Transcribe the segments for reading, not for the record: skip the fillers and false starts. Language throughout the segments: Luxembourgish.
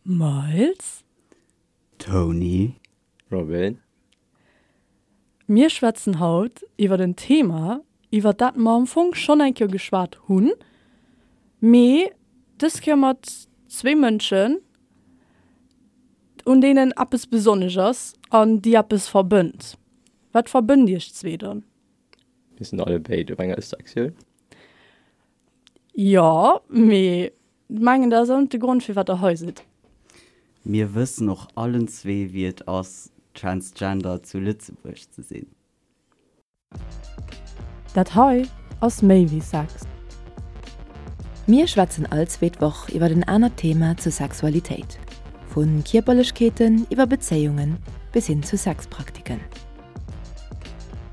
Miles. Tony. Robin. Mir schwätzen haut iwwert en Thema, iwwert dat mer am Fong schonn eng Kéier geschwat hunn, mee dës Kéier mat zwéi Mënschen, un deenen eppes besonnesch ass an déi eppes verbënnt. Wat verbënnt iech zwee dann? Mir sinn allebéid op enger Ëssektioun. Jo, mee mengen dat ass och net de Grond firwat der hei sidd. Mir wëssen och allen zwee wéi et ass Transgender zu Lëtzebuerg ze sinn. Dat hei ass méi wéi Sex. Mir schwätzen all zweet Woch iwwer en anert Thema zur Sexualitéit, vu Kierperlechkeeten iwwer Bezéiungen bis hin zu Sexpraktiken.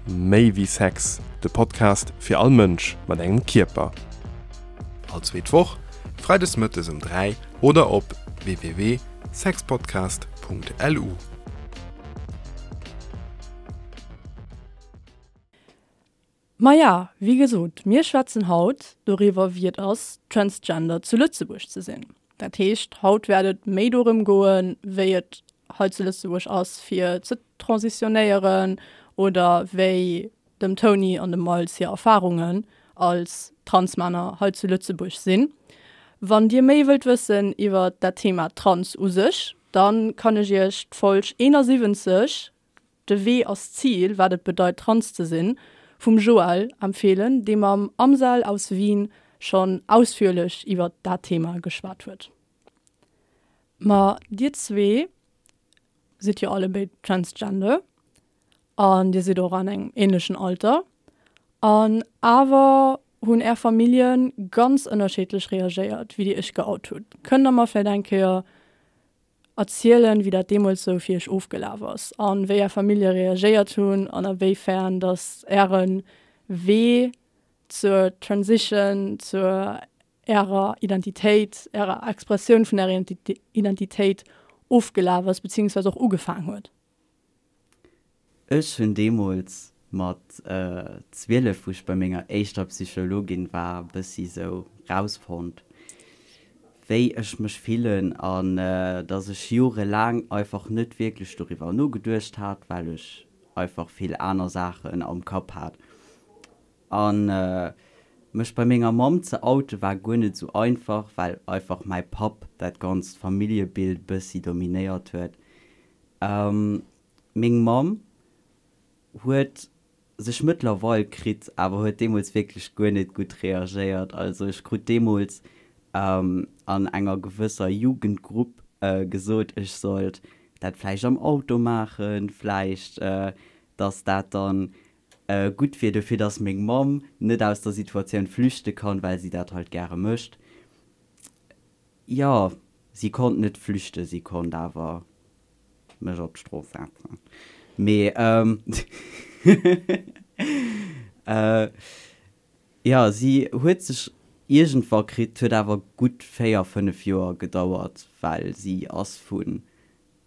Méi wéi Sex, de Podcast fir all Mënsch mat engem Kierper. All zweet Woch, freides mëttes um 3 oder op www.sexpodcast.lu. Maja, wéi gesot, mir schwätzen haut doriwwer, wéi et ass, Transgender zu Lëtzebuerg ze sinn. Dat heescht, haut wäert et méi dorëm goen, wéi et hei zu Lëtzebuerg ass, fir ze transitionéieren oder wéi dem Tony an dem Miles hir Erfarungen als Transmänner hei zu Lëtzebuerg sinn. Wann Dir méi wëllt wëssen iwwer dat Thema Trans u sech, da kann ech Iech d'Folg 71, De Wee ass d'Zil, wat et bedeit trans ze sinn, vum Joël empfeelen, dee mam Amsel aus Wien schonn ausführlech iwwert dat Thema geschwat huet. Ma dir zwee sidd jo allebéid transgender an dir sidd och an engem ähnlechen Alter an awer hunn är Famillje ganz ënnerschiddlech reagéiert, wéi dir iech geout hutt. Kënnt der mer vläicht eng Kéier erzielen, wéi dat deemools sou fir iech ofgelaf ass an wéi är Famillje reagéiert hunn an a wéi fern dass äre Wee zur Transition, zur ärer Identitéit, ärer Expressioun vun ärer Identitéit ofgelaf ass, beziehungsweise och ugefaang huet. Ech hunn deemools mat 12, wou ech bei menger éischter Psychologin war, bëssi sou rausfonnt, wéi ech mech fillen an dass ech jorelaang einfach net wierklech doriwwer nogeduecht hat, well ech einfach vill aner Saachen am Kapp hat. An mech bei menger Mamm ze oute war guer net sou einfach, well einfach mäi Papp dat ganzt Familljebild bëssi dominéiert huet. Meng Mamm huet sech mëttlerweil kritt, awer huet deemools wierklech guer net gutt reagéiert. Also ech krut deemools an enger gewësser Jugendgrupp gesot, ech sollt dat vläicht am Auto maachen, vläicht dass dat dann gutt wier dofir, dass meng Mamm net aus der Situatioun flüchte kann, well si dat halt gäre mécht. Jo, si konnt net flüchten, si konnt awer mech op d'Strooss setzen. Mee jo, si huet sech iergendwa kritt, huet awer gutt 4, 5 Joer gedauert, well si ass vun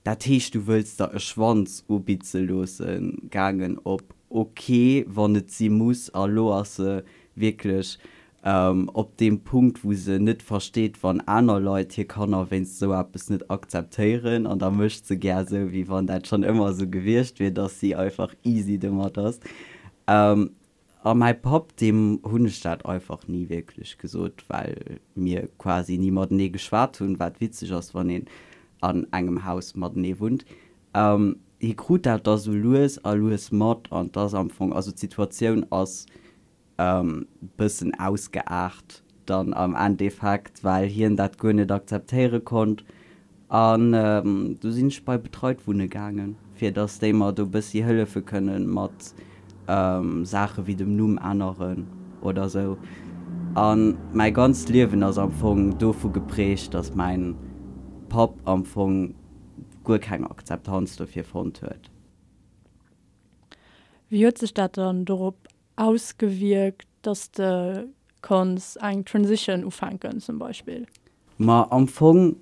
Dat heescht, du wëlls der e Schwanz ubitze loossen gaangen op ok, wann et si muss. A lo ass se wierklech op deem Punkt, wou se net versteet, wann aner Leit hir Kanner wéinst esou eppes net akzeptéieren. An da mécht se gär esou, wéi wann dat schonn ëmmer esou gewiescht wier, dass si einfach easy domat ass. A mäi Papp, deem hunn ech dat einfach ni wierklech gesot, well mir quasi ni matenee geschwat hunn, wat witzeg ass, wann een an engem Haus matenee wunnt. Hie krut dat da sou lues a lues mat an 't ass am Fong, also d'Situatioun ass bëssen ausgeaart dann am Endeffekt, well hien dat guer net akzeptéiere konnt. An du sinn ech bei Betreit wunne gaangen, fir dass déi mer do bëssi hëllefe kënnen mat Saache wéi dem Numm änneren oder sou. A mäi ganzt Liewen ass am Fong dovu geprägt, dass mäin Papp am Fong guer keng Akzeptanz dofir fonnt huet. Wéi huet sech dat dann dorop ausgewierkt, dass de konns eng Transition ufänken zum Beispill? Ma am Fong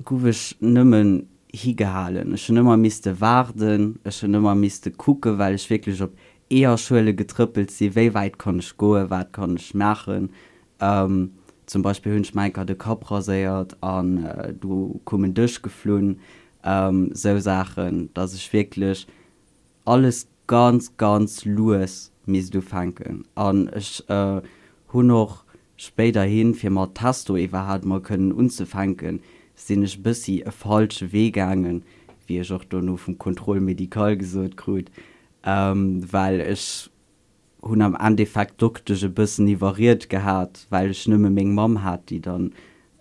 guff ech nëmmen higehalen. Ech hunn ëmmer misste waarden, ech hunn ëmmer misste kucken, well ech wierklech op Eeërschuele getrëppelt sinn, wéi wäit kann ech goen, wat kann ech maachen. Zum Beispill hunn ech mer enker de Kapp raséiert an du koum en Dësch geflunn. Sou Saachen, dass ech wierklech alles ganz, ganz lues misst ufänken. An ech hunn och spéiderhin, fir mat Testo iwwerhaapt mol kënnen unzefänken, sinn ech e bëssi e falsche Wee gaangen, wéi ech och dono vum Contrôle médical gesot krut, well ech hunn am Endeffekt d'Doktesch e bëssen iwwerriet gehat, well ech nëmme meng Mamm hat, déi dann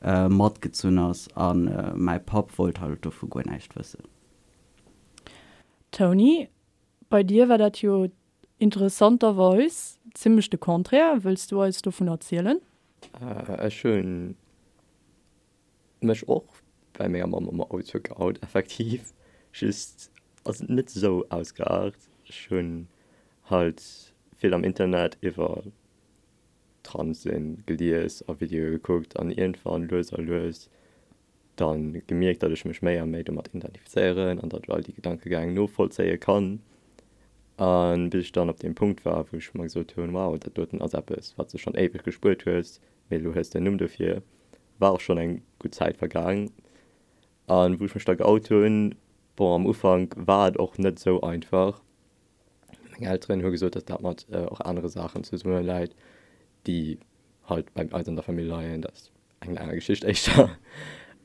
matgezunn ass, a mäi Papp wollt halt dovu guer näischt wëssen. Tony, bei dir war dat jo interessanterweis zimmlech de Contraire. Wëlls du eis dovun erzielen? Ech hunn mech och bei menger Mamm am Auto geout, effektiv, just ass et net esou ausgeaart. Ech hunn halt vill am Internet iwwer Trans-Sinn gelies a Videoe gekuckt an iergendwann lues a lues dann gemierkt, datt ech mech méi a méi domat identifizéieren an datt ech all déi Gedankegäng novollzéie kann. A bis ech dann op deem Punkt war, wou ech mer gesot hunn, wow, dat doten ass eppes, wat s de schonn éiweg gespuert hues, mee elo hues de en Numm dofir, war och schonn eng gutt Zäit vergaang. A wou ech mech da geout hunn, bon, am Ufank war et och net esou einfach. Meng Elteren hu gesot, datt dat mat och anere Saachen zesumme läit, déi halt bei eis an der Famill leien, dat eng aner Geschicht éischter.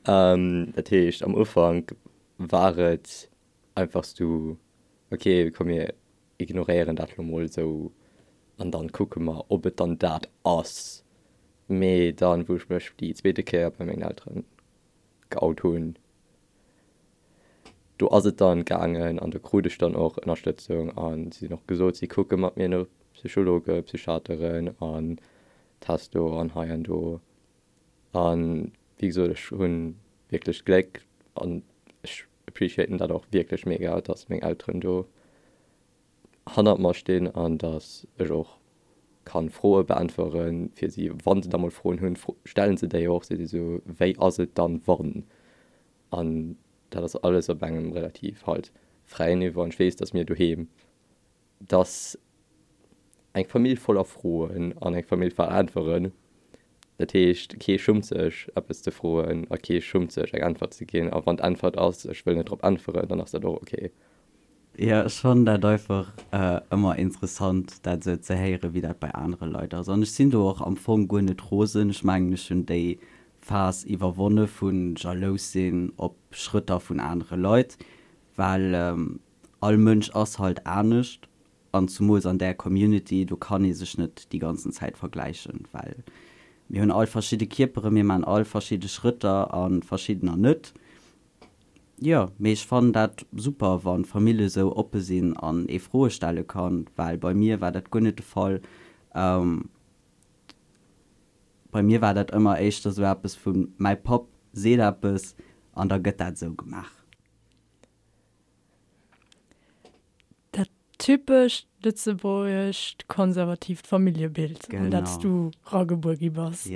Dat heescht am Ufank war et einfach sou, ok komm mir ignoréieren dat lo mol esou an dann kucke mer ob et dann dat ass. Mee dann wou ech mech déi zweete Kéier bei mengen Elteren geout hunn, do ass et dann gaangen an do krut ech dann och Ënnerstëtzung an si hunn och gesot si kucke mat mir no Psychologe, Psychiateren an Testo an hei an do. An wéi gesot, ech hu wierklech d'Gléck an ech appreciaten dat och wierklech mega, dass meng Elteren do hannert mer stinn an dass ech och kann Froe beäntwere fir si. Wa se da mol Froen hunn, stellen se déi och. Si si sou, wéi ass et dann wann? An dat ass alles op engem relativ halt fräien Niveau an ech weess, dass mir doheem dass eng Famill voller Froen an eng Famill voller Äntweren, dat heescht, kee schummt sech eppes ze froen a kee schummt sech eng Äntwert ze ginn. A wann d'Äntwert ass, ech wëll net drop äntweren, dann ass dat och ok. Jo, ech fannen dat einfach ëmmer interessant, dat esou ze héieren, wéi dat bei anere Leit ass. An ech sinn do och am Fong guer net rosen. Ech mengen, ech hunn déi Phas iwwerwonne vu jalous sinn op Schrëtter vun anere Leit, well all Mënsch ass halt anescht an zumools an där Community, do kann ee sech net déi ganzen Zäit vergläichen, well mir hunn all verschidde Kierperen, mir maachen all verschidde Schrëtter a verschiddener net. Jo, mee ech fannen dat super, wa Famillje sou oppe sinn an ee Froe stelle kann, well bei mir war dat guer net de Fall. Bei mir war dat ëmmer éischter sou eppes vu mäi Papp seet eppes an da gëtt dat esou gemaach. Dat typescht lëtzebuergescht konservatiivt Familljebild, an dat s du ragebuer gi bass.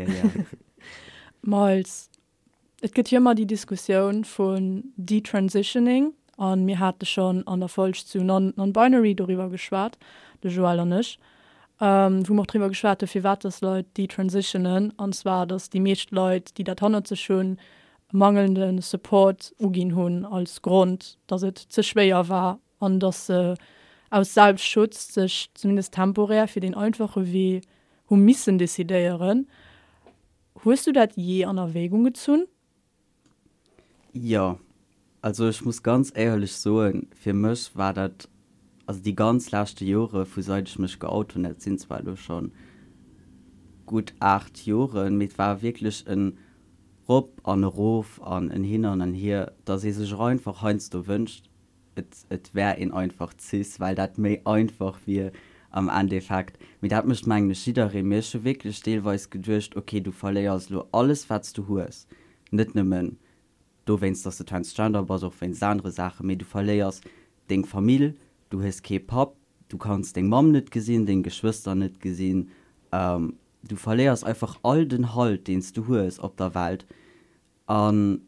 Miles, et gëtt jo ëmmer déi Diskussioun vun Detransitioning, a mir hate schonn an der Folg zu Non-Binary doriwwer geschwat, de Joël an ech, wou mer och driwwer geschwat hu firwat dass Leit detransitionen, an zwar dass déi meescht Leit, déi dat hannert sech hunn, mangelnde Support uginn hunn als Grond, datt et ze schwéier war an datt se aus Selbstschutz sech zumindest temporär fir deen einfache Wee hu missen decidéieren. Hues du dat jee an Erwägung gezunn? Jo, also ech muss ganz éierlech soen, fir mech war dat, also déi ganz leschte Jore vu seit ech mech geout hunn, dat sinn zwar elo scho gutt 8 Joren, mee et war wierklech en Rop an erof an en Hin an en Hier, dass ee sech och einfach heiansdo wënscht, et et wär een einfach cis, well dat méi einfach wier am Endeffekt. Mee dat mécht mengen ech jidderee. Mee ech hu wierklech deelweis geduecht, ok, du verléiers elo alles wat s du hues, net nëmmen dowéinst, dass de transgender bass, och wéinst anere Saachen, mee du verléiers deng Famill, du hues kee Papp, du kanns deng Mamm net gesinn, deng Geschwëster net gesinn, Du verléiers einfach all den Halt deen s du hues op der Welt an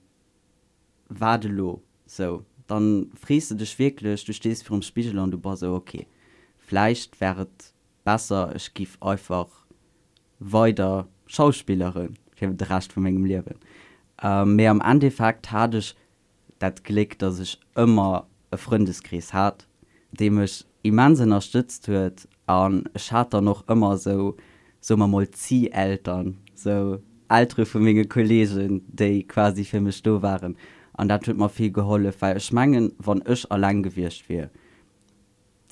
wat elo? Sou, dann frees de dech wierklech, du stees virum Spigel an du bass sou, ok, vläicht wär et besser ech giff einfach weider schauspilleren. Fir de Rescht vu mengem Liewen. Mee am Endeffekt hat ech dat Gléck, dass ech ëmmer e Frëndeskrees hat, dee mech immens ënnerstëtzt huet an ech hat dann och ëmmer esou, soe mer mol, Zieh-Eltern, esou Eltere vu menge Kolleegen, déi quasi fir mech do waren an dat huet mer vill gehollef, well ech mengen, wann ech alleng gewiescht wier,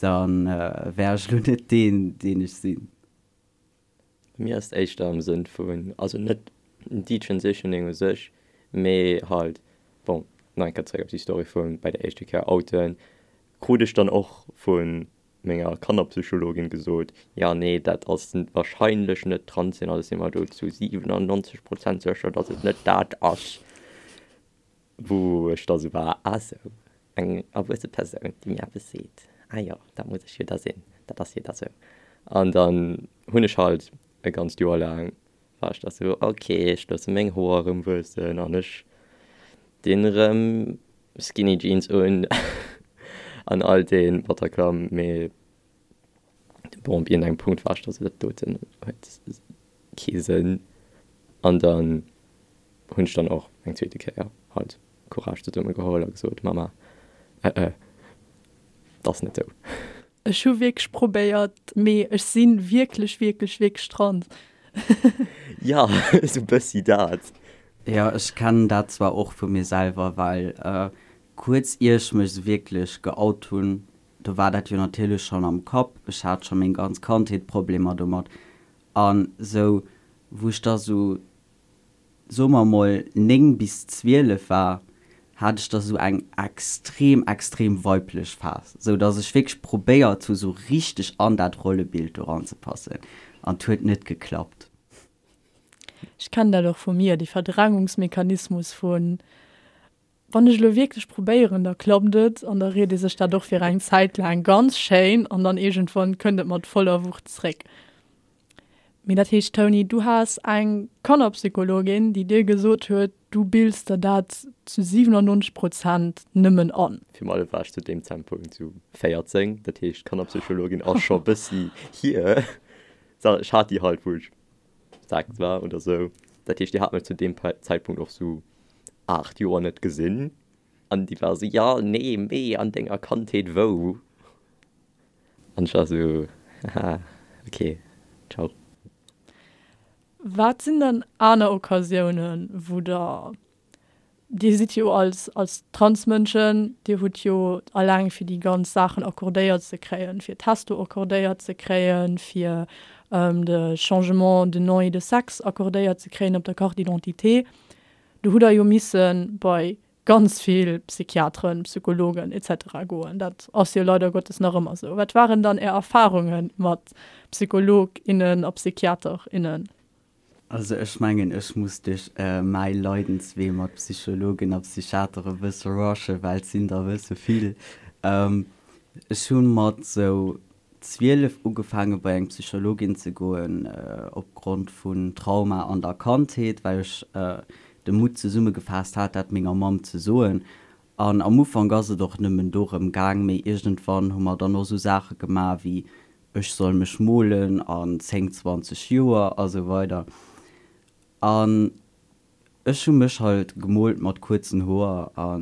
da wär ech elo net deen, deen ech sinn. Bei mir ass et éischter am Sënn vun, also net Detransitioning u sech, mee halt, bon, nach eng Kéier zeréck op déi Story vu bei der éischte Kéier outen, krut ech dann och vu menger Kannerpsychologin gesot, jo, nee, dat ass wahrscheinlech net trans sinn, also si mer do zu 97 Prozent sécher, datt et net dat ass. Wou ech da sou war, ah sou, eng erwuesse Persoun, déi mir eppes seet, ah jo, dat muss ech jo da sinn, dat ass jo da sou. An dann hunn ech halt e ganzt Joer laang, war ech da sou, ok, ech loosse meng Hoer erëm wuessen an ech dinn erëm Skinny Jeans un an all dee Bataclan, mee Bon, op iergendengem Punkt war ech da sou, dat doten huet kee Sënn. An dann hunn ech dann och eng zweete Kéier halt Courage zesumme geholl a gesot, Mama, äh, äh, 't ass net sou. Ech hu wierklech probéiert, mee ech si wierklech, wierklech, wierklech trans. Jo, sou bëssi dat. Jo, ech kennen dat zwar och vu mir selwer, well kuerz ier ech mech sou wierklech geout hunn, Do war dat jo natierlech schonn am Kapp, ech hat scho meng ganz Kandheet Problemer domat. An sou wou ech da sou, soe mer mol 9 bis 12 war, hat ech da sou eng extrem, extrem weiblech Phas, sou dass ech wierklech probéiert hu sou richteg an dat Rollebild do ranzepassen an 't huet net geklappt. Ech kennen dat och vu mir, dee Verdrängungsmechanismus vun Wann ech elo wierklech probéieren, da klappt et an da ried ee sech dat och fir eng Zäit laang ganz schéin an dann iergendwann kënnt et mat voller Wucht zréck. Mee dat heescht, Tony, du has eng Kannerpsychologin, déi dir gesot huet, du bills der dat zu 97 Prozent nëmmen an. Virun allem war ech zu deem Zäitpunkt sou 14, dat heescht d'Kannerpsychologin ass scho bëssi hier. Ech hat déi halt, wou ech 6 war oder sou. Dat heescht, déi hat mech zu deem Zäitpunkt och sou 8 Joer net gesinn an déi war sou, jo, nee, mee an denger Kandheet wou? An ech war sou, haha, ok, ciao. Wat sinn dann aner Occasiounen, wou der, Dir sidd jo als, als Transmënschen, Dir hutt jo alleng fir déi ganz Saachen accordéiert ze kréien, fir Testo accordéiert ze kréien, fir de Changement de nom et de sexe accordéiert ze kréien op der Carte d'identité, Do hutt Der jo misse bei ganz vill Psychiateren, Psychologen etc. Goen. Dat ass jo leider Gottes nach ëmmer esou. Wat waren dann Är Erfarunge mat Psycholog, innen a Psychiater, innen? Also ech mengen, ech muss duerch mäi Leidenswee mat Psychologen a Psychiater e bësse rushen, well et sinn der e bësse vill. Ech hu mat esou 12 ugefaange bei eng Psychologin ze goen opgrond vun Trauma an der Kandheet, well ech de Mutt zesummegefaasst hat, dat menger Mamm ze soen. An am Ufank ass et och nëmmen dorëm gaang, mee iergendwann hu mer dann och esou Saache gemaach wéi ech soll mech molen an 10, 20 Joer a sou weider. An Ech hu mech halt gemolt mat kuerzen Hoer a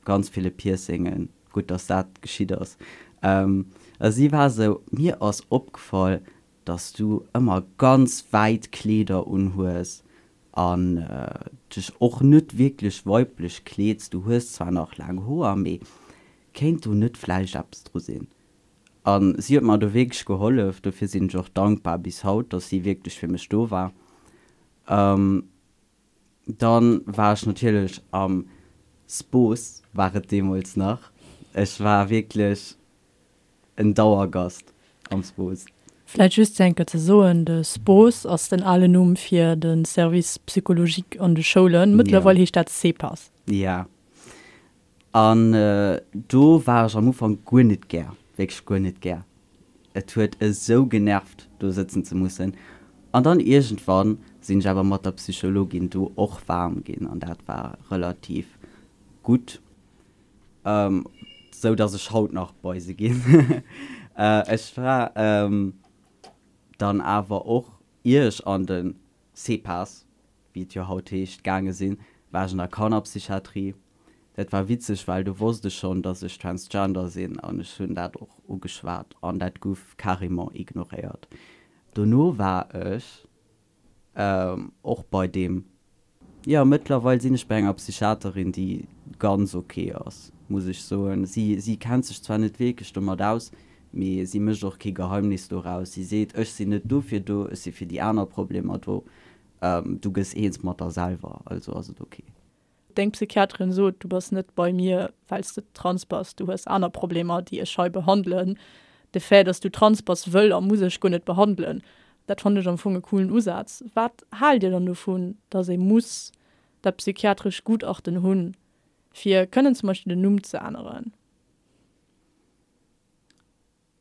ganz ville Piercingen, gutt dass dat geschitt ass. A si war sou, mir ass opgefall dass du ëmmer ganz wäit Kleeder unhues an dech och net wierklech weiblech kleeds, du hues zwar nach laang Hoer, mee kéint do net vläicht eppes dru sinn? A si huet mer do wierklech gehollef, dofir sinn ech och dankbar bis haut, dass si wierklech fir mech do war. Dann war ech natierlech am Spos, war et deemools nach. Ech war wierklech en Dauergast am Spos. Vläit just fir eng Kéier ze soen, de Spos ass den alen Numm fir de Service psychologique an de Schoulen. Mëttlerweil heescht dat CEPAS. Ja. An do war ech am Ufank guer net gär, wierklech guer net gär. Et huet esou genervt, do sëtzen ze mussen. An dann iergendwann sinn ech awer mat der Psychologin do och waarm ginn an dat war relativ gutt, sou dass ech haut nach bei se ginn. Ech war dann awer och, ier ech an de CEPAS. wéi et jo haut heescht, gaange sinn, war ech an der Kannerpsychiatrie. Dat war witzeg, well do wosst ech schonn, dass ech transgender sinn an ech hunn dat och ugeschwat an dat guff carrément ignoréiert. Dono war ech och bei deem, jo, mëttlerweil sinn ech bei enger Psychiaterin, déi ganz ok ass, muss ech soen. Si, si kennt sech zwar net wierklech domat aus, mee si mécht och kee Geheimnis doraus. Si seet, ech sinn net dofir do, ech si fir déi aner Problemer do, du gëss eens mat der selwer, also ass et ok. Deng Psychiaterin sot, du bass net bei mir, well s de trans bass, du hues aner Problemer, déi ech hei behandelen. De Fait, dass du trans bass, wëll a muss ech guer net behandelen. Dat fannen ech am Fong e coolen Usaz. Wat haalt Dir dann dovun, dass ee muss dat psychiatrescht Gutachten hunn, fir kënnen zum Beispill den Numm ze änneren?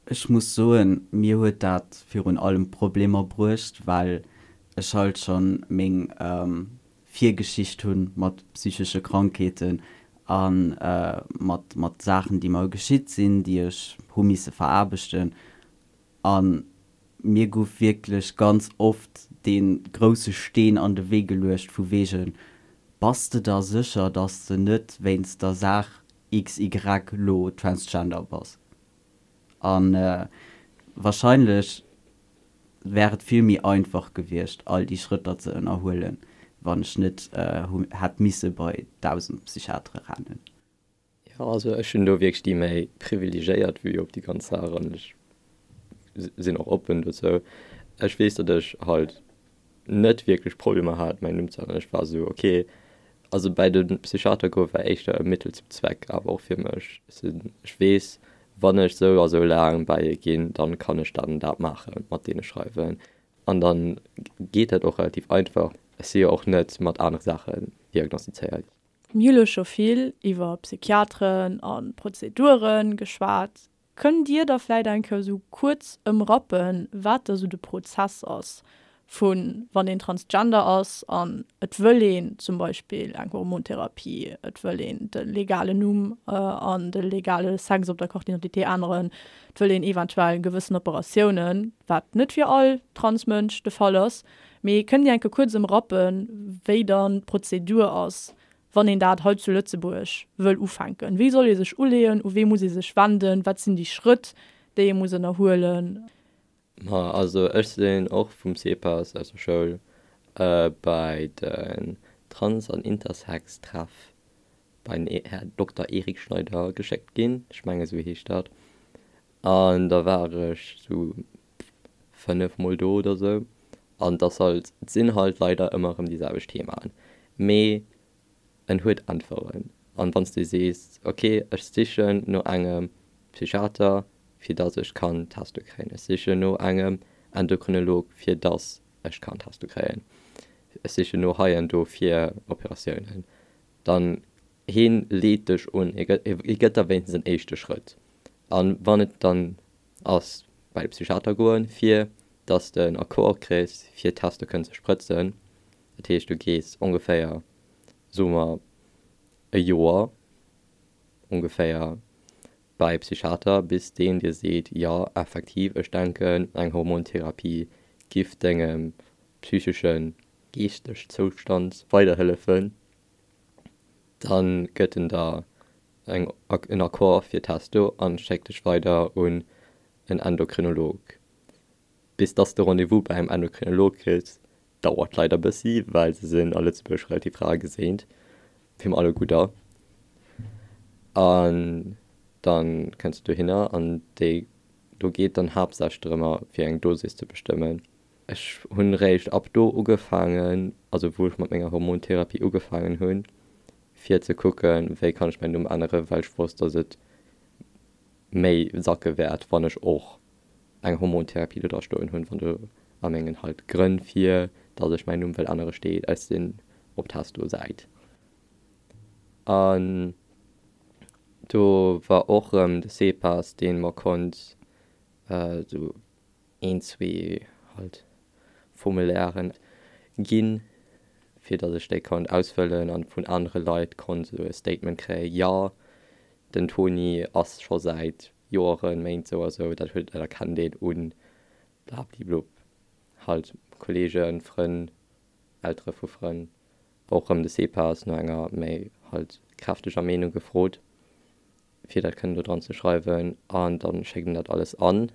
Ech muss soen, mir huet dat virun allem Problemer bruecht, well ech halt schonn meng Virgeschicht hunn mat psychesche Krankheeten a mat mat Saachen, déi mer geschitt sinn, déi ech hu misse veraarbechten. A mir gouf wierklech ganz oft dee grousse Steen an de Wee geluecht vu wegen, Bass de der sécher, dass de net wéinst der Saach XY lo transgender bass? A wahrscheinlech wär et vill méi einfach gewiescht, all déi Schrëtter ze ënnerhuelen, wann ech net hätt misse bei 1.000 Psychiatere rennen. Jo, also ech hunn do wierklech déi méi privilegéiert Vue op déi ganz Saach an ech sinn och oppen dozou. Ech weess, datt ech halt net wierklech Problemer hat mäin Numm ze änneren. Ech war esou ok, also bäi de Psychiater goe war éischter e Mittel zum Zweck awer och fir mech. Ech weess, wann ech sou a sou laang bäi e ginn, dann kann ech dat an dat maachen, mat deene schreiwen an dann geet dat och relativ einfach. Ech si jo och net mat anere Saachen diagnostizéiert. Mir hu lo scho vill iwwer Psychiateren a Prozedure geschwat. Kënnt Dir da vläit eng Kéier esou kuerz ëmrappen, wat da sou de Prozess ass vu wann een Transgender ass an et wëll een zum Beispill eng Hormontherapie, et wëll een de legalen Numm an de legale Sex op der Carte d'identité änneren, et wëll een eventuell gewëssen Operatiounen, wat net fir all Transmënsch de Fall ass. Mee kënnt Dir eng Kéier kuerz ëmrappen, wéi dann d'Prozedur ass, wann een dat hei zu Lëtzebuerg wëll ufänken? Wéi soll ee sech uleeën? U wee muss ee sech wenden? Wat sinn déi Schrëtt, déi ee muss ënnerhuelen? Ma also ech sinn och vum CEPAS aus der Schoul bei den Trans an Intersex Treff bei den Här Dokter Eric Schneider geschéckt ginn, ech menge sou heescht dat, an da war ech sou 5 mol do oder sou an et ass halt, et sinn halt leider ëmmer erëm déi selwecht Themaen, mee en huet Äntweren. An wann s de sees, ok ech sichen no engem Psychiater fir dass ech kann Testo kréien, ech sichen no engem Endokrinolog fir dass ech kann Testo kréien, ech sichen no hei an do fir Operatiounen, dann heen leet dech un, hie gëtt der wéinstens en éischte Schrëtt. An wann et dann ass bei de Psychiater goen, fir dass de en Accord kriss, fir Testo kënnen ze sprëtzen. Dat heescht, du gees ongeféier, soe mer, e Joer ongeféier bei e Psychiater, bis deen dir seet, jo, effektiv, ech denken, eng Hormontherapie giff dengem psycheschen, geeschteg Zoustand weiderhëllefen. Dann gëtt en der eng en Accord fir Testo an schéckt dech weider un en Endokrinolog. Bis dass de Rendez-vous bei engem Endokrinolog kriss, dauert leider bëssi, well se sinn a Lëtzebuerg relativ rar geséint, fir mer alleguer. An dann kënns de dohinner an déi do geet dann haaptsächlech drëmmer fir eng Dosis ze bestëmmen. Ech hunn réischt ab do ugefaangen, also wou ech mat menger Hormontherapie ugefaangen hunn, fir ze kucken, wéi kann ech mäin Numm änneren, well ech wosst, dass et méi sacke wäert, wann ech och eng Hormontherapie do dra stoen hunn, wann do a mengen halt Grënn fir dass ech mäin Numm wëll ännere steet, ech sinn op Testo-Säit. An do war och erëm de CEPAS, dee mer konnt esou een, zwee halt Formulairen ginn, fir datt ech déi konnt ausfëllen an vun anere Leit konnt esou e Statement kréien, jo, den Toni ass scho säit Joeren, Méint sou a sou, dat huet, dat erkennt een un blabliblub, halt Kollegen, Frënn. Eltere vu Frënn, och erëm de CPAS no enger méi halt kräfteger Meenung gefrot, fir dat kënnen do dran ze schreiwen. An da schéckt een dat alles an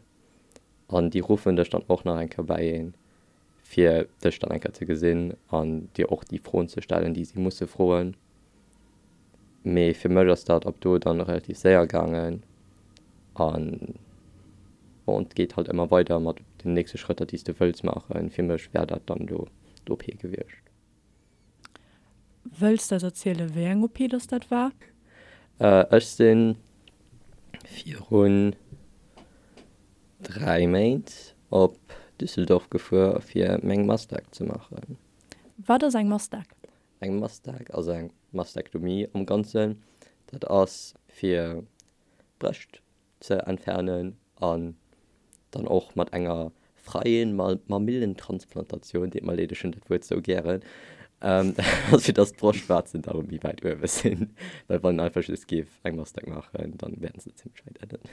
an déi ruffen dech dann och nach eng Kéier bäi een, fir dech dann eng Kéier ze gesinn an dir och déi Froen ze stellen, déi si musse froen. Mee fir mech ass dat ab do dann relativ séier gaangen an bon, et geet halt ëmmer weider mat den nächste Schrëtter, déi s de wëlls maachen. Fir mech wär dat dann do d'OP gewiescht. Wëlls de eis erzielen, wéi eng OP dass dat war? Ech si virun 3 Méint op Düsseldorf gefuer fir meng Mastec ze maachen. Wat ass eng Mastec? Eng Mastec ass eng Mastektomie am Ganzen. Dat ass fir d'Brëscht ze entfernen an dann och mat enger freien Mamillentransplantatioun, deet mer leed, ech hunn dat Wuert sou gären, dat ass fir dass d'Broschtwaarzen da méi wäit uewe sinn, well wann een einfach just géif eng Mastec maachen, dann wären se zimmlech wäit ënnen.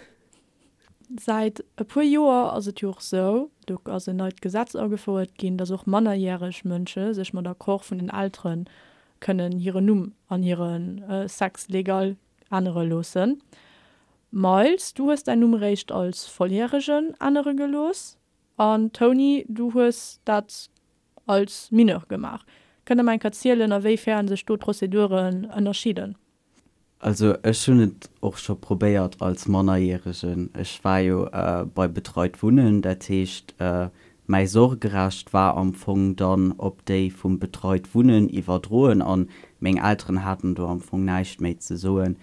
Säit e puer Joer ass et jo och sou, do ass en neit Gesetz agefouert ginn, dass och mannerjäreg Mënsche sech mat Accord vun den Eltere kënnen hiren Numm an hire Sex legal ännere loossen. Miles, du hues däin Numm eréischt als Volljäregen ännere gelooss an Tony, du hues dat als Mineur gemaach. Kënnt der mer eng Kéier zielen, a wéi fern sech do d'Prozeduren ënnerscheeden? Also ech hunn et och scho probéiert als Mannerjäregen. Ech war jo bei Betreit Wunnen, dat heescht mäi Sorgerecht war am Fong dann op déi vum Betreit Wunnen iwwerdroen an meng Elteren haten do am Fong näischt méi ze soen.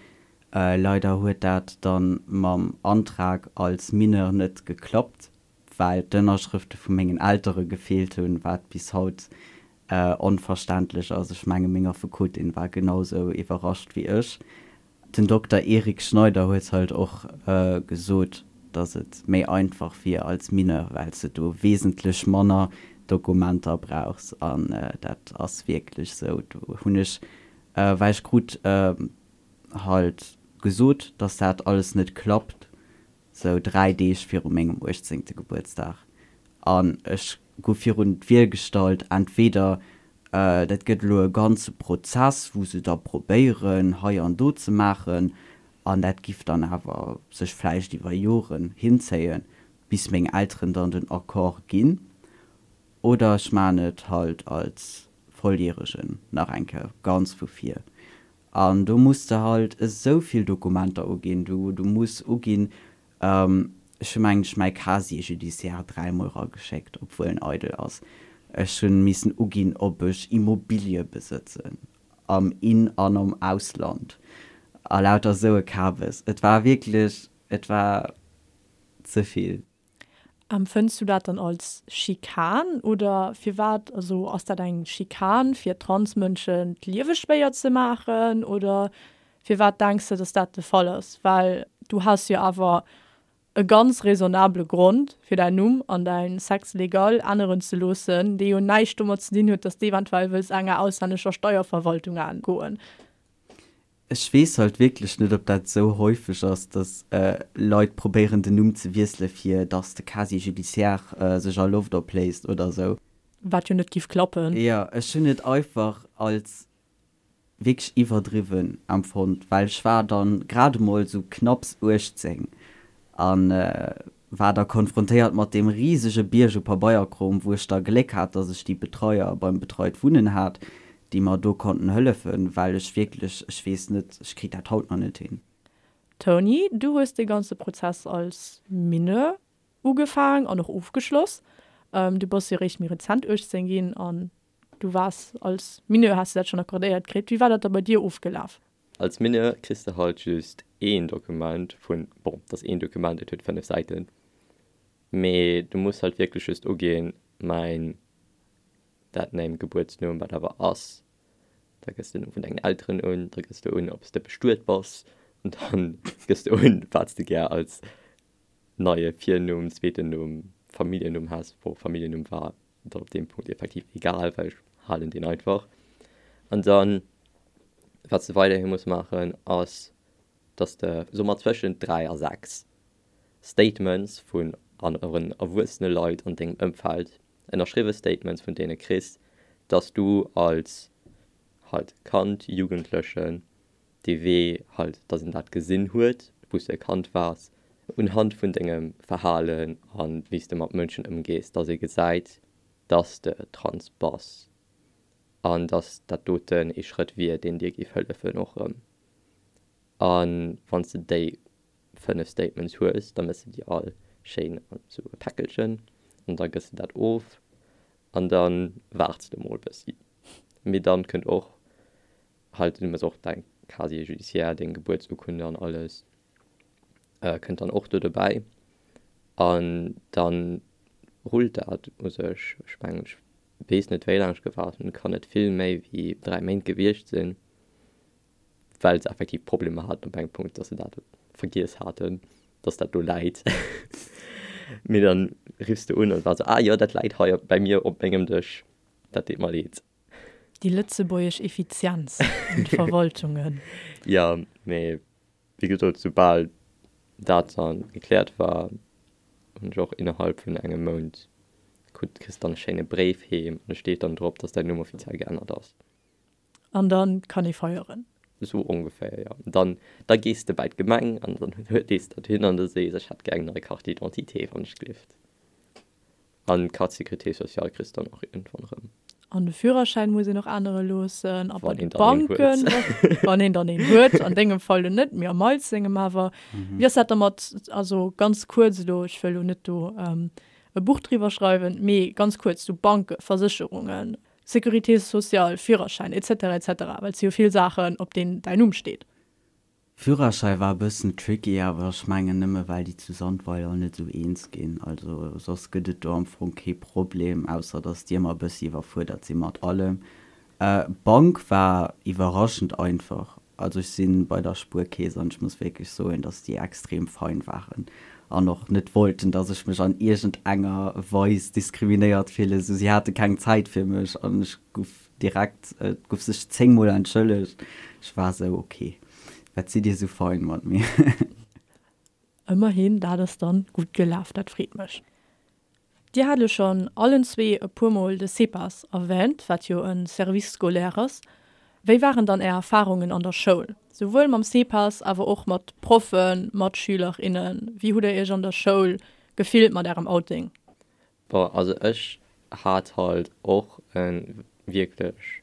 Leider huet dat dann mam Antrag als Mineur net geklappt, well d'Ënnerschrëfte vu mengen Eltere gefeelt hunn, wat bis haut onverständlech ass. Ech menge meng Affekotin war genau sou iwwerrascht wéi ech. Den Dokter Eric Schneider huet halt och gesot, datt et méi einfach wier als Mineur, well s de do wesentlech manner Dokumenter brauchs. An dat ass wierklech sou. Do hunn ech, well ech krut halt gesot, datt dat alles net klappt, sou 3 Deeg viru mengem uechtzéngte Gebuertsdag, an ech gouf virun d'Wiel gestallt, entweder dat gëtt elo e ganze Prozess, wou se da probéieren hei an do ze maachen, an dat giff dann awer sech vläicht iwwer Joren hinzéien, bis meng Elteren dann den Accord ginn, oder ech maan et halt als Volljäregen nach eng Kéier ganz vu vir. An do muss de halt esou vill Dokumenter uginn. Du, du muss uginn, ech hu mengen ech mäi Casier judiciaire dräimol erageschéckt, obwuel en eidel ass. Ech hu missen uginn, ob ech Immobilie besëtzen, am In an am Ausland, a lauter esou e Kabes. Et war wierklech, et war ze vill. Empfënns du dat dann als Schikan oder firwat? Also ass dat eng Schikan fir Transmënschen d'Liewe schwéier ze maachen oder firwat denks de, dass dat de Fall ass? Well du has jo awer e ganz raisonnabele Grond fir däin Numm an däin Sexe légal änneren ze loossen, dee jo näischt domat ze dinn huet, dass de eventuell wëlls enger auslännescher Steierverwaltung entgoen. Ech weess halt wierklech net, ob dat esou häufeg ass, dass Leit probéieren den Numm ze wiessele fir dass de Casier judiciaire sech a Loft opléist oder esou. Wat jo net giff klappen. Jo, ech hunn et einfach als wierklech iwwerdriwwen empfonnt, well ech war dann grad emol esou knapps 18 an war da konfrontéiert mat deem risege Bierg u Pabeierkrom, wou ech da Gléck hat, dass ech déi Betreier beim Betreit Wunnen hat, déi mer do konnten hëllefen, well ech wierklech, ech weess net, ech kritt dat haut nach net hin. Tony, du hues dee ganze Prozess als Mineur ugefaang an och ofgeschloss. Du bass jo eréischt méi rezent 18 ginn an du waars als Mineur, has de dat schonn accordéiert kritt. Wéi war dat da bei dir ofgelaf? Als Mineur kriss de halt just een Dokument vun, bon, et ass een Dokument, et huet 5 Säiten, mee du muss halt wierklech just uginn, mäin Deadname, Gebuertsnumm, wat awer ass, da gëss de den Numm vun dengen Elteren un, da gëss de un, ob s de bestuet bass, an dann gëss de un, wat s de gär als neie Virnumm, zweeten Numm, Familljennumm has, bon, Familljennumm war dann op deem Punkt effektiv egal, well ech halen deen einfach. An dann, wat s de weiderhi muss maachen, ass, dass de, soe mer, zwëschent 3 a 6 Statements vun aneren erwuessene Leit an dengem Ëmfeld, ënnerschriwwe Statements vun deene kriss, Dass du als halt Kand, Jugendlechen dee Wee halt, dass een dat gesinn huet, wou s de e Kand waars, unhand vun dengem Verhalen a wéi s de mat Mënschen ëmgees, dass ee gesäit, dass de trans bass an dass dat doten ee Schrëtt wier, deen dir géif hëllefen och erëm. A wann s de déi 5 Statements hues, da méchs de déi all schéin an esou e Päckelchen an da gëss de dat of an da waarts de mol bëssi. Mee dann kënnt och halt, du muss och däin Casier judiciaire, deng Gebuertsurkunde an alles kënnt dann och do dobäi an dann rullt dat u sech. Ech mengen, ech weess net wéi laang ech gewaart hunn, kann net vill méi wéi 3 Méint gewiescht sinn, well se effektiv Problemer haten op engem Punkt, dass se dat vergiess haten, dass dat do läit. Mee dann riffs de un an war sou, ah jo, dat läit hei bei mir op mengem Dësch, dat deet mer leed. Déi lëtzebuergesch Effizienz an de Verwaltungen. Jo, mee wéi gesot, soubal dat dann gekläert war, hunn ech och innerhalb vun engem Mount krut, kriss dann e schéine Bréif heem an et steet dann drop, dass däin Numm offiziell geännert ass. An dann kann ee feieren. Esou ongeféier, jo. Dann, da gees de bäi d'Gemeng an dann dees dat hin an da sees, ech hätt gär eng nei Carte d'identité, wann ech glift. An d'Carte sécurité sociale kriss de dann och iergendwann erëm. An de Führerschäin muss een och ännere loossen. A bei de Banken, wann een dann een huet, an dengem Fall lo net, mee am Miles sengem awer. Wéi ass dat da mat, also ganz kuerz elo, ech wëll elo net do e Buch driwwer schreiwen, mee ganz kuerz, sou Banken, Versécherungen, Sécurité sociale, Führerschäin, etc. Etc. Well et si jo vill Saachen, op deenen däin Numm steet. Führerschäi war e bëssen tricky, awer ech mengen nëmme well déi zu Sandweiler net esou eens ginn. Also soss gëtt et do am Fong kee Problem, ausser dass déi ëmmer e bëssi iwwerfuerdert si mat allem. Bank war iwwerraschend einfach. Also ech si bei der Spuerkeess an ech muss wierklech soen, dass déi extrem fein waren an och net wollten, dass ech mech an iergend enger Weis diskriminéiert fillen. Sou si hate keng Zäit fir mech an ech guff Direkt, et guff sech 10 mol entschëllegt. Ech war sou, ok, wat sidd dir sou fein mat mir. Ëmmerhin, dat ass dann gutt gelaf, dat freet mech. Dir hat elo schonn allen zwee e puer mol de CEPAS erwähnt, wat jo e Service scolaire ass. Wéi waren dann Är Erfarungen an der Schoul, souwuel mam CEPAS, awer och mat Proffen, Matschüler, innen? Wéi hutt Der Iech an der Schoul gefillt mat Ärem Outing? Bon, also ech hat halt och e wierklech